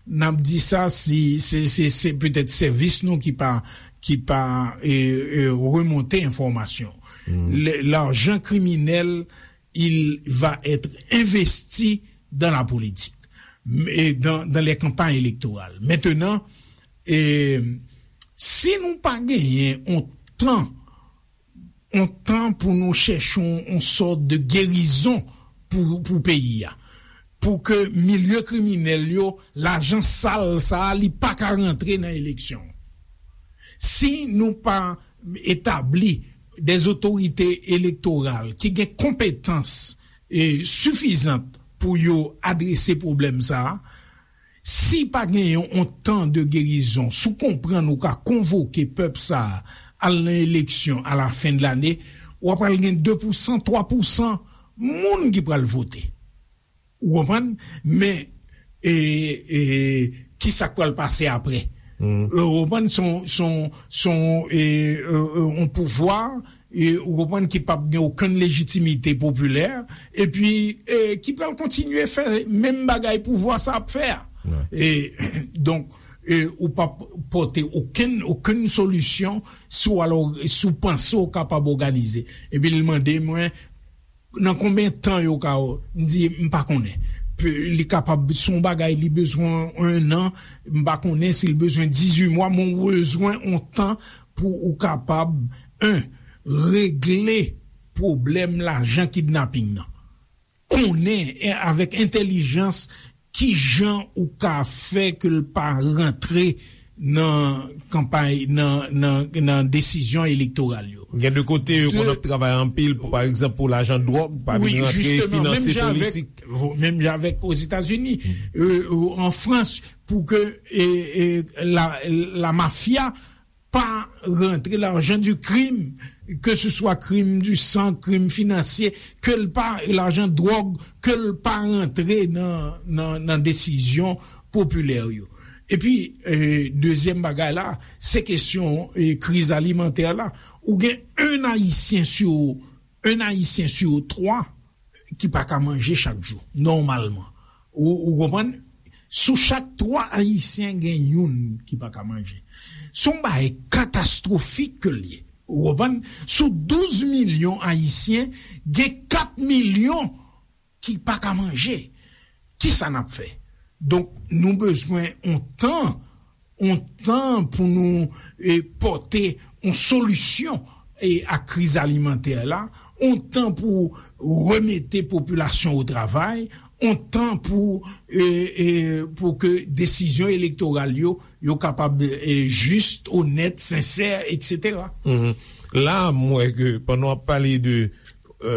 N ap di sa, si, se, se, se petèt sèvis nou ki pa, ki pa, e, e, remonte enfòmasyon. Le, l'argent criminel, il va être investi dans la politique, et dans, dans les campagnes électorales. Mentenan, e, si nou pa genyen yon tan, yon tan pou nou chèche yon, yon sòt de gerizon pou, pou peyi a, pou ke milye kriminèl yo, lajan sal sa a, li pa ka rantre nan eleksyon. Si nou pa etabli de otorite elektoral ki gen konpetans, e, sifizant pou yo adrese pwoblèm sa a, Si pa genyen yon tan de gerizon, si w konprann ou ka konvoke pèp sa a al nan eleksyon a la fen de lane, w ap al gen de pousan, twa pousan moun ki pral vote. Ou konprann? Men, e, e, ki sa k pral pase apre? Ou konprann? Se yon, se yon, se yon, e, e, e, yon pouvwa, e, ou konprann, ki p ap gen okenn lejitimite popilè, epi, e, ki pral kontinye fè menm bagay pouvwa sa ap fè a. E, donk, e, ou p ap pote okenn, okenn solisyon si w alò, si w panse w kapab òganize. Epi l mande mwen, nan konbyen tan yo ka, m di, m pa konnen. Pe- li kapab, se yon bagay, li bezwen en an, m pa konnen si l bezwen dizuit mwa, men w bezwen yon tan pou ou kapab, en, regle pwoblèm lajan kidnaping nan. Konnen, e, avèk entèlijans, ki jan ou ka fè ke l pa rantre nan kanpay, nan, nan, nan desizyon elektoral yo. Gen de kote, yo konn ap travay anpil pou, pa egzanp, pou lajan dwòg pa vin rantre finanse politik. Menm jan avèk Ozetazini, e, e, an Frans, pou ke, e, e, la, la mafya pa rantre, lajan di krim, ke se swa krim di san, krim finansye, ke l pa, lajan dwòg, ke l pa rantre nan, nan, nan desizyon popilè yo. Epi, e, dezyèm bagay la, se kesyon, e, kriz alimantè la. Ou gen en Ayisyen sou, en Ayisyen sou twa ki pa ka manje chak jou, nòmalman. Ou, ou konprann? Sou chak twa Ayisyen, gen youn ki pa ka manje. Se yon bagay katastwofik ke l ye. Ou konprann? Sou douz milyon Ayisyen, gen kat milyon ki pa ka manje. Kisa n ap fè? Donk, nou bezwen yon tan yon tan pou nou, e, pote yon solisyon, e, a kriz alimantè la, yon tan pou remete popilasyon o travay, yon tan pou, e, e, pou ke desizyon elektoral yo, yo kapab, e, jis, onèt, sensè, etsetera. Mhm. La, m wè ke pandan w ap pale de, e,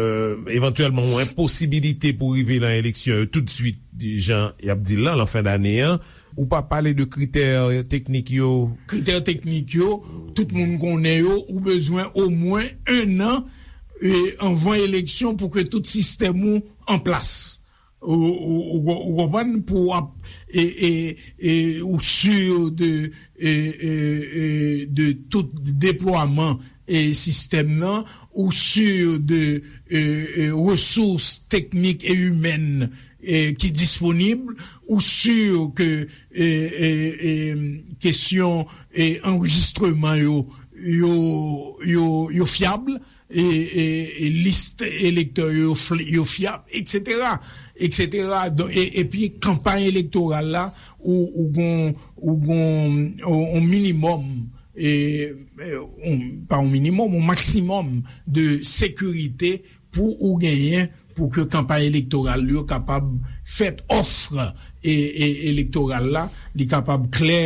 evantyèlman, yon enposibilite pou rive nan eleksyon yo toutswit, jan y ap di l lan, lan fen dane an, ou pa pale de kritè teknik yo. Kritè teknik yo, tout moun konnen yo, ou bezwen omwen en an, e, anvan eleksyon pou ke tout sistèm ou an plas. Ou, ou, ou, ou konprann? Pou w ap, e, e, e, ou si de, e, e, e, de tout deplwaman, e, sistèm nan, ou si de, e, e, resous teknik e imèn, e, ki disponib, ou si ke, e, e, e, kesyon, e, anrejistreman yo, yo, yo, yo fyab, e, e, e, lis elektè yo, fl- yo fyab, etsetera, etsetera. Donk, e, epi kanpay elektoral la, ou, ou gon, ou gon, on, on minimòm, e, e, on, pa on minimòm, on maksimòm de sekirite pou ou genyen pou ke kanpay elektoral yo kapab fèt, òf, e, e, elektoral la, li kapab klè,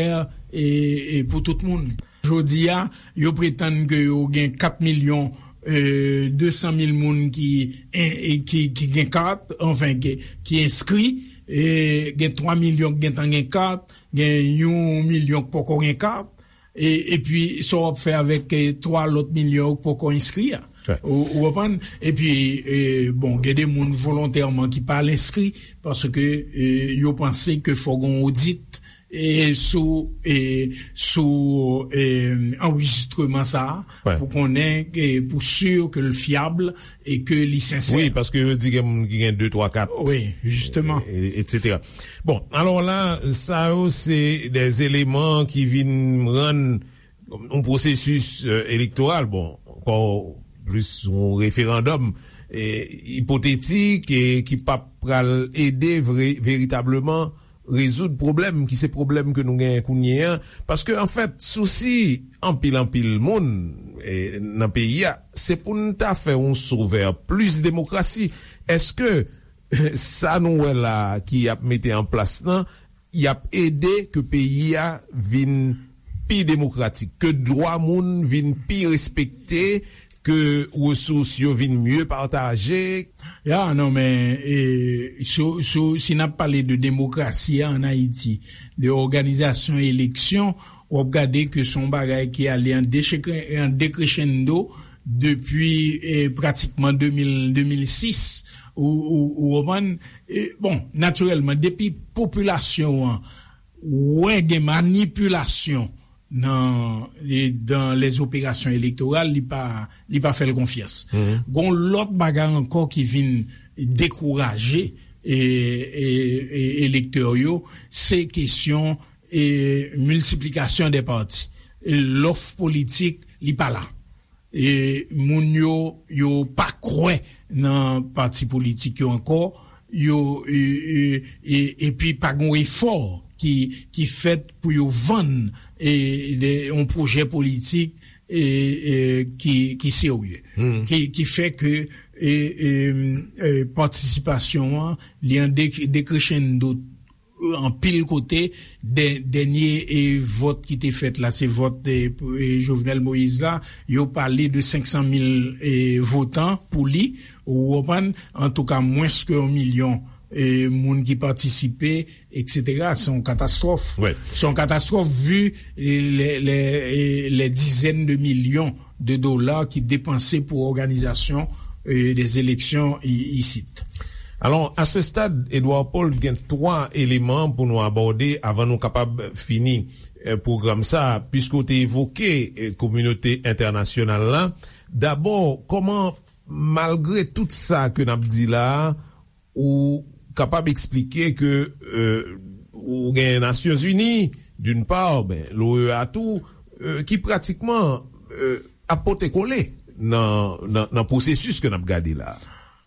e, e, pou tout moun. Jodi a, yo pretann ke yo gen kat milyon, e, de san mil moun ki, e, e, ki, ki gen kat, anfen, ki, ki enskri, e, gen twa milyon ki gentan gen kat, gen yon milyon ki poko gen kat, e, epi sa w ap fè avèk, e, twa lòt milyon yo ki poko enskri a? Ou, ou konprann? Epi, e, bon, gen de moun volontèman ki pa al enskri, paske, e, yo panse ke fò gen yon odit, e, sou, e, sou, e, anrejistreman sa a, pou konnen, e, pou si ke l fyab e ke li sensè. Wi, paske yo di gen moun ki gen de, twa, kat. Wi, jisteman. E, etsetera. Bon, alò la, sa yo se de eleman ki vin rann yon pwosesis, e, elektoral, bon, ankò plis yon referandòm, e, ipotetik, e ki p ap pral ede vre, veritableman rezoud pwoblèm ki se pwoblèm ke nou genyen kounye a. Paske, anfèt, sousi anpil, anpil moun, e, nan peyi a, se pou n ta fè yon sovè plis demokrasi. Èske sa nou wè la ki ap mete an plas lan, y ap ede ke peyi a vin pi demokratik, ke dwa moun vin pi respekte, ke resous yo vin mye pataje? Ya, non, men, e, sou, sou, si n ap pale de demokrasi a ann Ayiti, de òganizasyon eleksyon, w ap gade ke se yon bagay ki ale an dechekre-, an dekrechenndo depi, e, pratikman de mil, de mil sis, ou, ou, ou konprann? E, bon, natirèlman, depi popilasyon an wè gen manipilasyon nan, e, dans les opérations électorales, li pa, li pa fè l konfyans. Gon lòt bagay ankò ki vin dekouraje, e, e, e, elektè yo, se kesyon, e, miltiplikasyon de pati. Lòf politik, li pa la. E moun yo, yo pa kwè nan pati politik yo ankò, yo, e, e, e, epi pa gen efò ki, ki fèt pou yo vann, e, de, yon pwojè politik, e, e, ki, ki serye. Ki, ki fè ke, e, e, e, patisipasyon an, li an de-, dekrechenndo anpil kote, dè-, dènye, e, vòt ki te fèt la, se vòt, e, e, Jovenel Moïse la, yo pale de senk san mil, e, votan pou li, ou konprann, antouka, mwens ke yon milyon, e, moun ki patisipe, etsetera. Se yon katastwòf. Se yon katastwòf, vi, e, lè, lè, e, lè dizèn de milyon de dola ki depanse pou òganizasyon, e, de eleksyon i-, isit. Alò, a se stad, Edouard Paul, gen twa eleman pou nou abòde avan nou kapab fini, e, pwogram sa, piske w te evoke, e, kominote entènasyonal la. Dabò, kòman, malgre tout sa ke n ap di la, ou kapab eksplike ke, e, ou gen Nasyonzini, d'une part, ben, l'O E A tou, e, ki pratikman, e, ap pote kole nan, nan, nan pwosesis ke n ap gade la.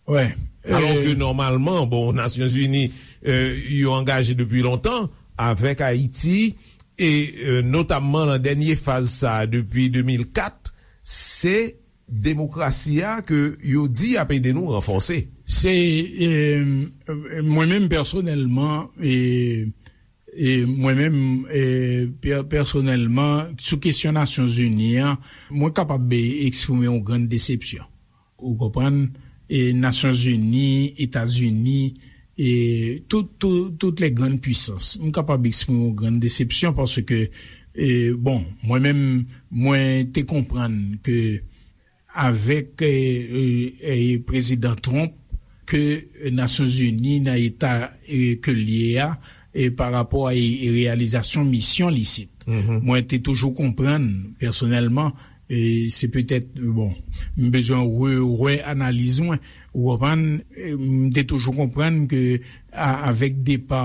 Alò ke nòmalman, bon, Nasyonzini, e, yo angaje depi lontan avèk Ayiti, e, e, notamman nan dènye faz sa a depi de mil kat, se demokrasi a ke yo di ap ede nou ranfòse. Se, e, mwen menm pèsonèlman, e, e mwen menm, e, pè-, pèsonèlman, sou kesyon Nasyonzini an, mwen kapab, e, eksprime yon grann desepsyon. Ou konprann? E Nasyonzini, Etazini, e tout, tout, tout les grandes puissances. M kapab eksprime yon grann desepsyon paske, e, bon, mwen menm, mwen te konprann ke avèk, e, e, e, Prezidan Trump ke Nasyonzini nan eta, e, ke l ye a, e, pa rapò a, e, e, reyalizasyon misyon l isit. Mwen te toujou konprann, pèsonèlman, e, se petèt, bon, m bezwen re-, wè analiz mwen, ou konprann, e, m te toujou konprann ke a-, avèk depa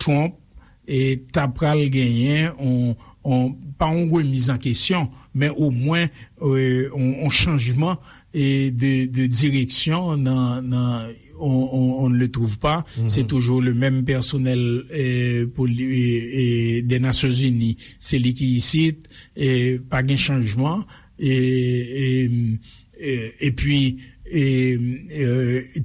Trump, e ta pral genyen on, on, pa on remiz an kesyon, men omwen, e, on, on chanjman, e, de, de direksyon nan, nan, on, on, on ne le trouve pas. Se toujou le menm pèsonèl, e, pou li, e, e, de Nasyonzini. Se li ki isit, e, pa gen chanjman, e, e, e, epi, e, e,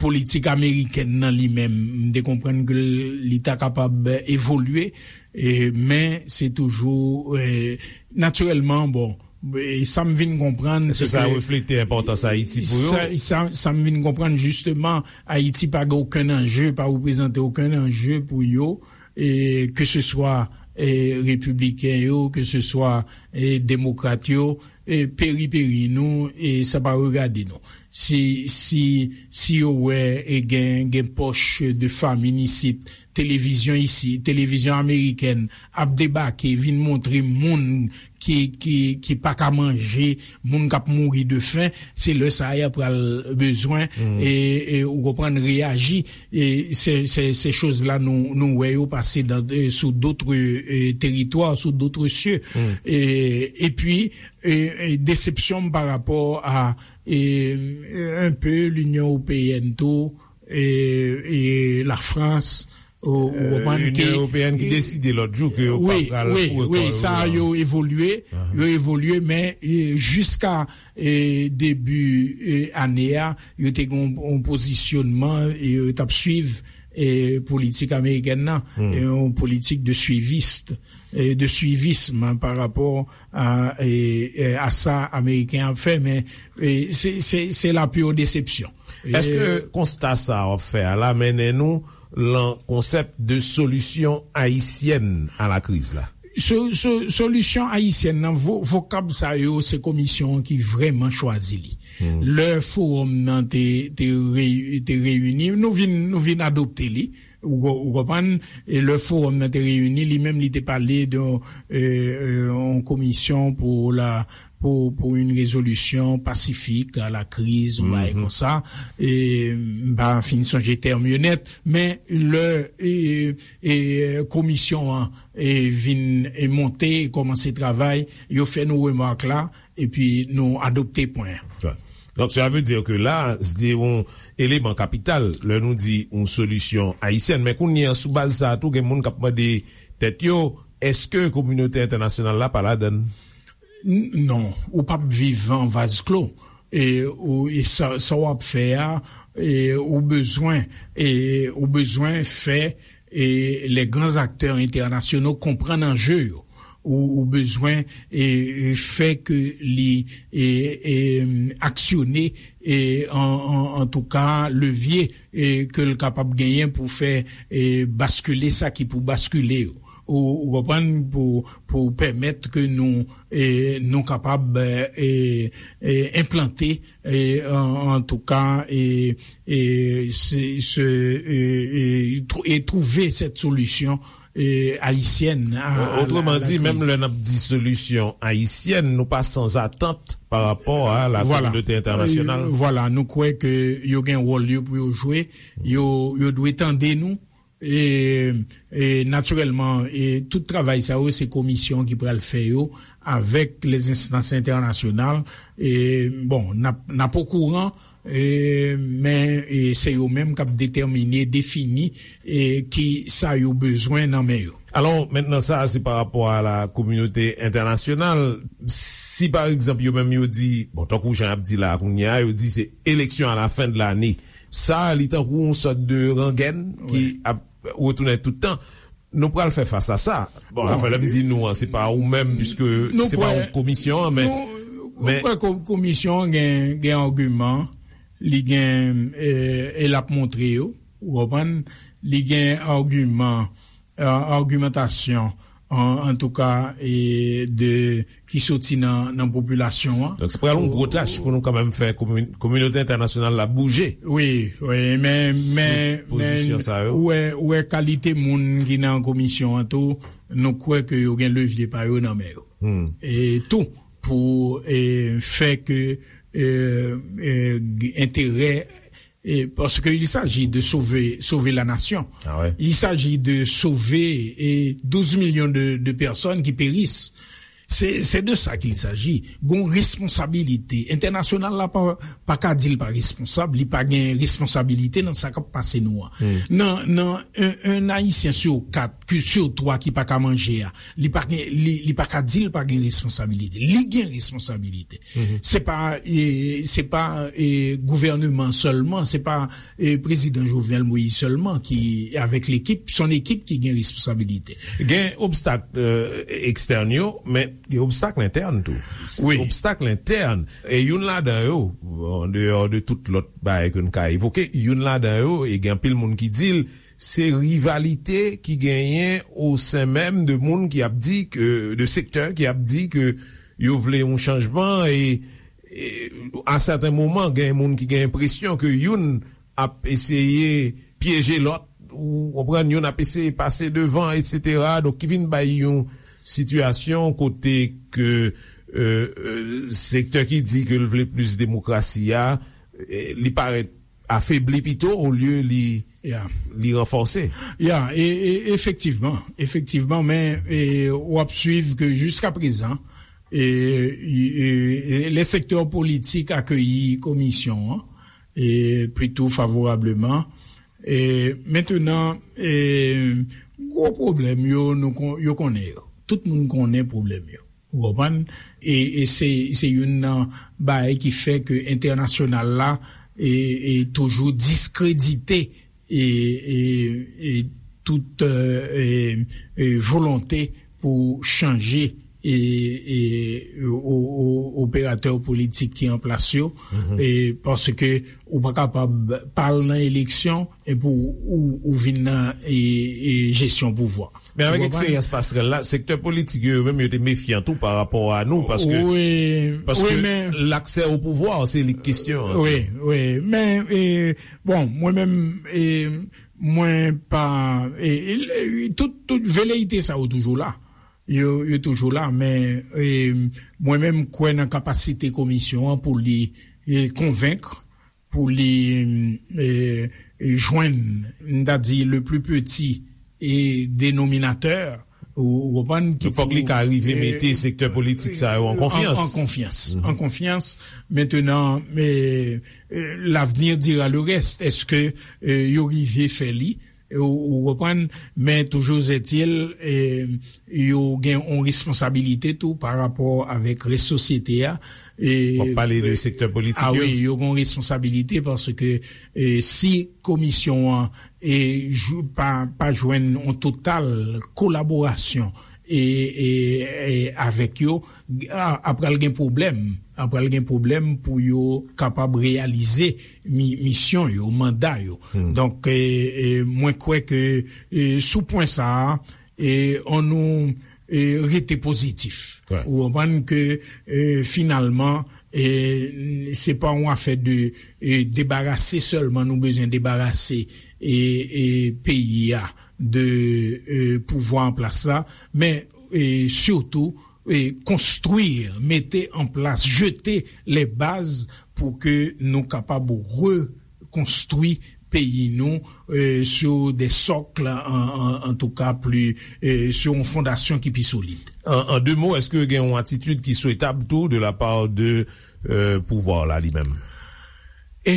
politik amerikèn nan li menm, m te konprann ke li ta kapab evolye, e, men se toujou, e, natirèlman, bon, e sa m vin konprann, se ke sa reflete enpòtans Ayiti pou yo? Sa, sa, sa m vin konprann, jisteman, Ayiti pa gen okenn anje, pa reprezante okenn anje pou yo, e, ke se swa, e, repibliken yo, ke se swa, e, demokrat yo, e, peri peri nou, e sa pa regade nou. Si, si, si yo wè, e, gen, gen pòch de famin isit, televizyon isi, televizyon amerikèn ap debake, vin montre moun ki, ki, ki pa ka manje, moun k ap mouri de fen, se lè sa a y ap pral bezwen, e, e, ou konprann, reyaji. E se, se, se choz la nou, nou wè yo pase dans, e, sous d'autres, e, territoires, sous d'autres cieux. E, epi, e, e, desepsyon m pa rapò a, e, e, un peu l'Union Européenne tou, e, e Lafrans, ou, ou konprann ke Linyon Ewopeyèn ki deside lòt jou ke yo pa pral foure kò yo nan. Wi, wi, sa yo evolye, yo evolye, men, e, jiska, e, debi, e, ane a, yo te gen yon, yon pozisyonman, e, yo t ap swiv, e, politik amerikèn nan, e, yon politik de suiviste, e, de suivisme pa rapò a, e, e, a sa Ameriken ap fè, men, e, se, se, se la pure déception. Èske konsta sa w ap fè a la mennen nou lan konsèp de solisyon ayisyèn a la kriz la? So, so, solisyon ayisyèn nan, vo, vokab sa yo, se komisyon an ki vrèman chwazi li. Lè fowòm nan te, te, rey, te reyini, nou vin, nou vin adopte li, ou, ou konprann, e lè fowòm nan te reyini, li menm li te pale de yon komisyon pou la, pou, pou yon rezolisyon pasifik a la kriz, yon bagay konsa. E, m pa fin sonje tèm yo nèt, men lè e, e, komisyon an e, vin e, monte, e kòmanse travay, yo fè nou remak la, epi nou adopte pwen an. Donk, sa vle di ke la, se yon eleman kapital lè nou di yon solisyon ayisyèn. Men kounye a, sou baz sa a tou, gen moun k ap mande tèt yo, èske kominote entènasyonal la pa ladann? Non, ou p ap viv an vaz klo. E, ou, e sa, sa w ap fè a, e, ou bezwen, e, ou bezwen fè, e, les grands acteurs internationaux konprann anje yo. Ou, ou bezwen, e, fè ke li, e, e, aksyone, e, an, an, antouka, levye, e, ke l kapab genyen pou fè, e, baskile sa ki pou baskile yo. Ou, ou konprann, pou, pou pèmèt ke nou, e, nou kapab, e, e, enplante, e, an, antouka, e, e, se, se, e, e, trou- e twouve sèt solisyon, e, ayisyèn a, a la, a la kriz. Menm lè n ap di solisyon ayisyèn, nou pa san atant pa rapò a la kominote entènasyonal. Vwala, nou kwè ke yo gen wòl yo pou yo jwe, yo, yo dwe tande nou, e, e natirèlman, e tout travay sa yo, se komisyon ki pral fè yo avèk lèzenstans entènasyonal. E, bon, n ap, n ap okouran, e, men, e, se yo menm k ap detèmine, defini, e, ki sa yo bezwen nan men yo. Alò, mentnan, sa a se pa rapò a la kominote entènasyonal. Si, pa egzanp, yo menm yo di, bon, tankou jan y ap di la a kounye a, yo di se élection à la fin de l'année. Sa a, li tankou yon sòt de rangèn ki ap retounen tout tan. Nou pral fè fas a sa. Bon, anfen, lè m di nou an, se pa ou menm, piske se pa ou komisyon an, men. Nou kwè komisyon an gen, gen agiman, li gen, e, e l ap montre yo, ou konprann, li gen agiman, e, agimantasyon, an, antouka, e, de ki soti nan, nan popilasyon an. Donk, se pral yon gwo tach pou nou kanmenm fè komi- kominote entènasyonal la bouje. Wi, wi, men, men, men, ou wè, ou wè kalite moun ki nan komisyon an tou, nou kwè ke yo gen levye pa yo nan men yo. E tou, pou, e, fè ke, e, e, enterè E, parce que il s'agit de sauver, sauver la nation. Ah ouais. Il s'agit de sauver, e, douze millions de, de personnes qui périssent. Se, se de sa qu'il s'agit. Gon responsabilite. Entènasyonal la pa, pa ka di l pa responsab, li pa gen responsabilite nan sa k ap pase nou an. Nan, nan, un, un Ayisyen sur quatre, ki, sur twa ki pa ka manje a, li pa gen, li, li pa ka di l pa gen responsabilite. Li gen responsabilite. Se pa, e, se pa, e, gouvèneman sèlman, se pa, e, prezidan Jovenel Moïse sèlman ki, avèk lekip, son ekip ki gen responsabilite. Gen obstak, e, ekstèn yo, men gen obstak entèn tou. Wi. Obstak entèn. E youn ladan yo, an deyò de tout lòt bagay ke n ka evoke, youn ladan yo, e gen anpil moun ki di l, se rivalite ki genyen o sen menm de moun ki ap di ke, de sektè ki ap di ke yo vle yon chanjman e, e a sèten moman, gen moun ki gen enpresyon ke youn ap eseye pyeje lòt, ou konprann, youn ap eseye pase devan, etsetera. Donk, ki vin bay yon sitiyasyon kote ke, e, e, sektè ki di ke l vle plis demokrasi a, e, li parèt afebli pito olye li, li ranfòse. Ya, e, e, efektivman, efektivman, men, e, w ap swiv ke jiskaprezan, e, e, e, le sektè politik akeyi komisyon an, e, plito favorableman. E, mentenan, e, gwo pwoblèm yo, nou kon- yo konnen yo. Tout moun konnen pwoblèm yo. Ou konprann? E, e se, se youn nan bagay ki fè ke entènasyonal la, e, e toujou diskredite, e, e, e tout, e, e, e volonte pou chanje e, e, o, o, operatè politik ki an plas yo, e, paske ou pa kapab pa al nan eleksyon epi ou, ou, ou vin nan e, e jesyon pouvwa. Men avèk eksperyans pasrèl la, sektè politik yo, yo menm yo te mefyan tou pa rapò a nou, paske, paske laksè o pouvwa, se li k kesyon an. Wi, wi. Men, e, bon, mwen menm, e, mwen pa, e, e, tout, tout veleyite sa yo toujou la. Yo, yo toujou la, men, e, mwen menm, m kwè nan kapasite komisyon an pou li, e, konvenk, pou li, e, jwenn, m ta di, le plus petit, e, dénominateur, ou, ou konprann, ki fòk li ka rive mete sektè politik sa yo an konfyans. An konfyans. An konfyans. Mentenan, e, e, l'avenir dira le reste. Èske, e, yo rive fè li? Ou, ou konprann? Men toujou etil, e, yo gen yon responsabilite tou pa rapò avèk rès sosyete a. E, w ap pale de sektè politik yo? A wi, yo gen yon responsabilite paske, e, si komisyon an, e, jou, pa, pa jwenn yon total kolaborasyon e, e, e avèk yo, a, apral gen pwoblèm. Apral gen pwoblèm pou yo kapab reyalize mi, misyon yo, manda yo. Donk, e, e, mwen kwè ke, e, sou pwen sa a, e, annou, e, rete pozitif. Ou konprann ke, e, finalman, e, se pa yon afè de, e, debarase sèlman, nou bezwen debarase, e, e, peyi a de, e, pouvwa an plas la, men, e, sitou, e, konstwi, mete an plas, jete les bases pou ke nou kapab rekonstwi peyi nou, e, sur des socles, an, an, en tout cas, plus, e, sur yon fondasyon ki pi solid. An, an de mo, èske gen yon atitid ki swetab tou de la part de, e, pouvwa la li menm? E,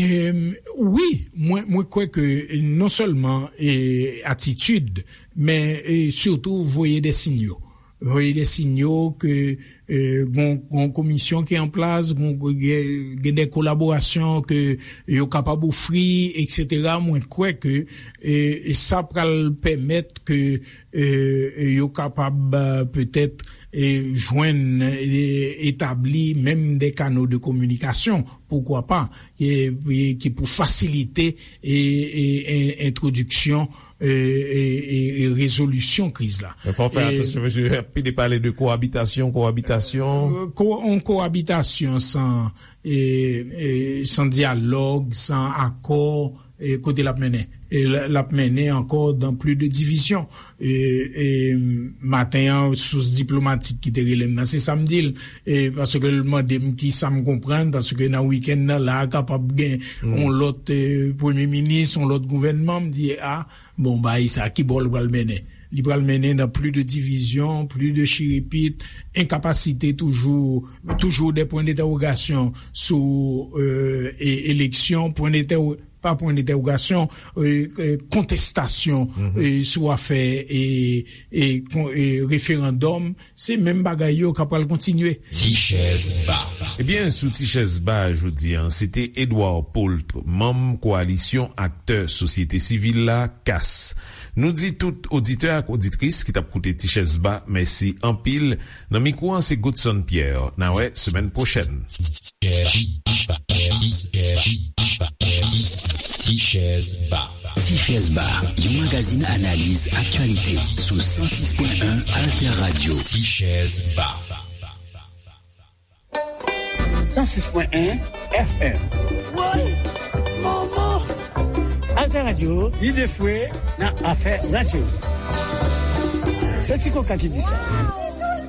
wi, mwen, mwen kwè ke non sèlman, e, atitid, men, e, sitou voye de sinyo. Voye de sinyo ke, e, gon, gon komisyon ki an plas, gon, gen, gen de kolaborasyon ke yo kapab ofri, etsetera. Mwen kwè ke, e, sa pral pèmèt ke, e, yo kapab, e, petèt, e, jwenn, e, etabli menm de kano de kominikasyon, poukwa pa, e, e, ki pou fasilite, e, e, e, entwodiksyon, e, e, e, e rezolisyon kriz la. Men fò w fè atansyon, mesye, anpil pale de kowabitasyon, kowabitasyon. E, ko-, yon kowabitasyon san, e, e, san dyalòg, san akò, e, kote l ap mennen? E l, l ap mennen ankò dans plus de division. E, e, maten an, sous diplomatik ki te rele m nan, se sa m di l. E, paske l mande m ki sa m konprann, paske nan wikenn nan, la, kapab gen yon lòt, e, premye minis, yon lòt gouvènman. M di, a, bon, bagay sa, ki bò l pral mennen? Li pral mennen dans plus de division, plus de chirepit, enkapasite toujou, toujours des points d'interrogation sou, e, e, eleksyon, pwen dentèwo-, pa pwen dentèwogasyon, e, e, kontestasyon, e, sou afè, e, e, kon-, e, referandòm, se menm bagay yo k ap pral kontinye. Ti chèz ba. Ebyen, sou Ti chèz ba jodi a, se te Edouard Paultre, manm Kowalisyon Aktè Sosyete Sivil la, kas. Nou di tout oditè ak oditris ki t ap koute Ti chèz ba, mèsi anpil. Nan mikwo an, se Godson Pierre. N a wè semèn pwochèn. Ti chèz ba. Ti chèz ba, yon magazin analiz aktyalite sou san sis pwen en Alter Radio. Ti chèz ba. San sis pwen en F M. Woy! Manman! Alter Radio, lide fwe nan afè radyo. Se Ti Koka ki di sa.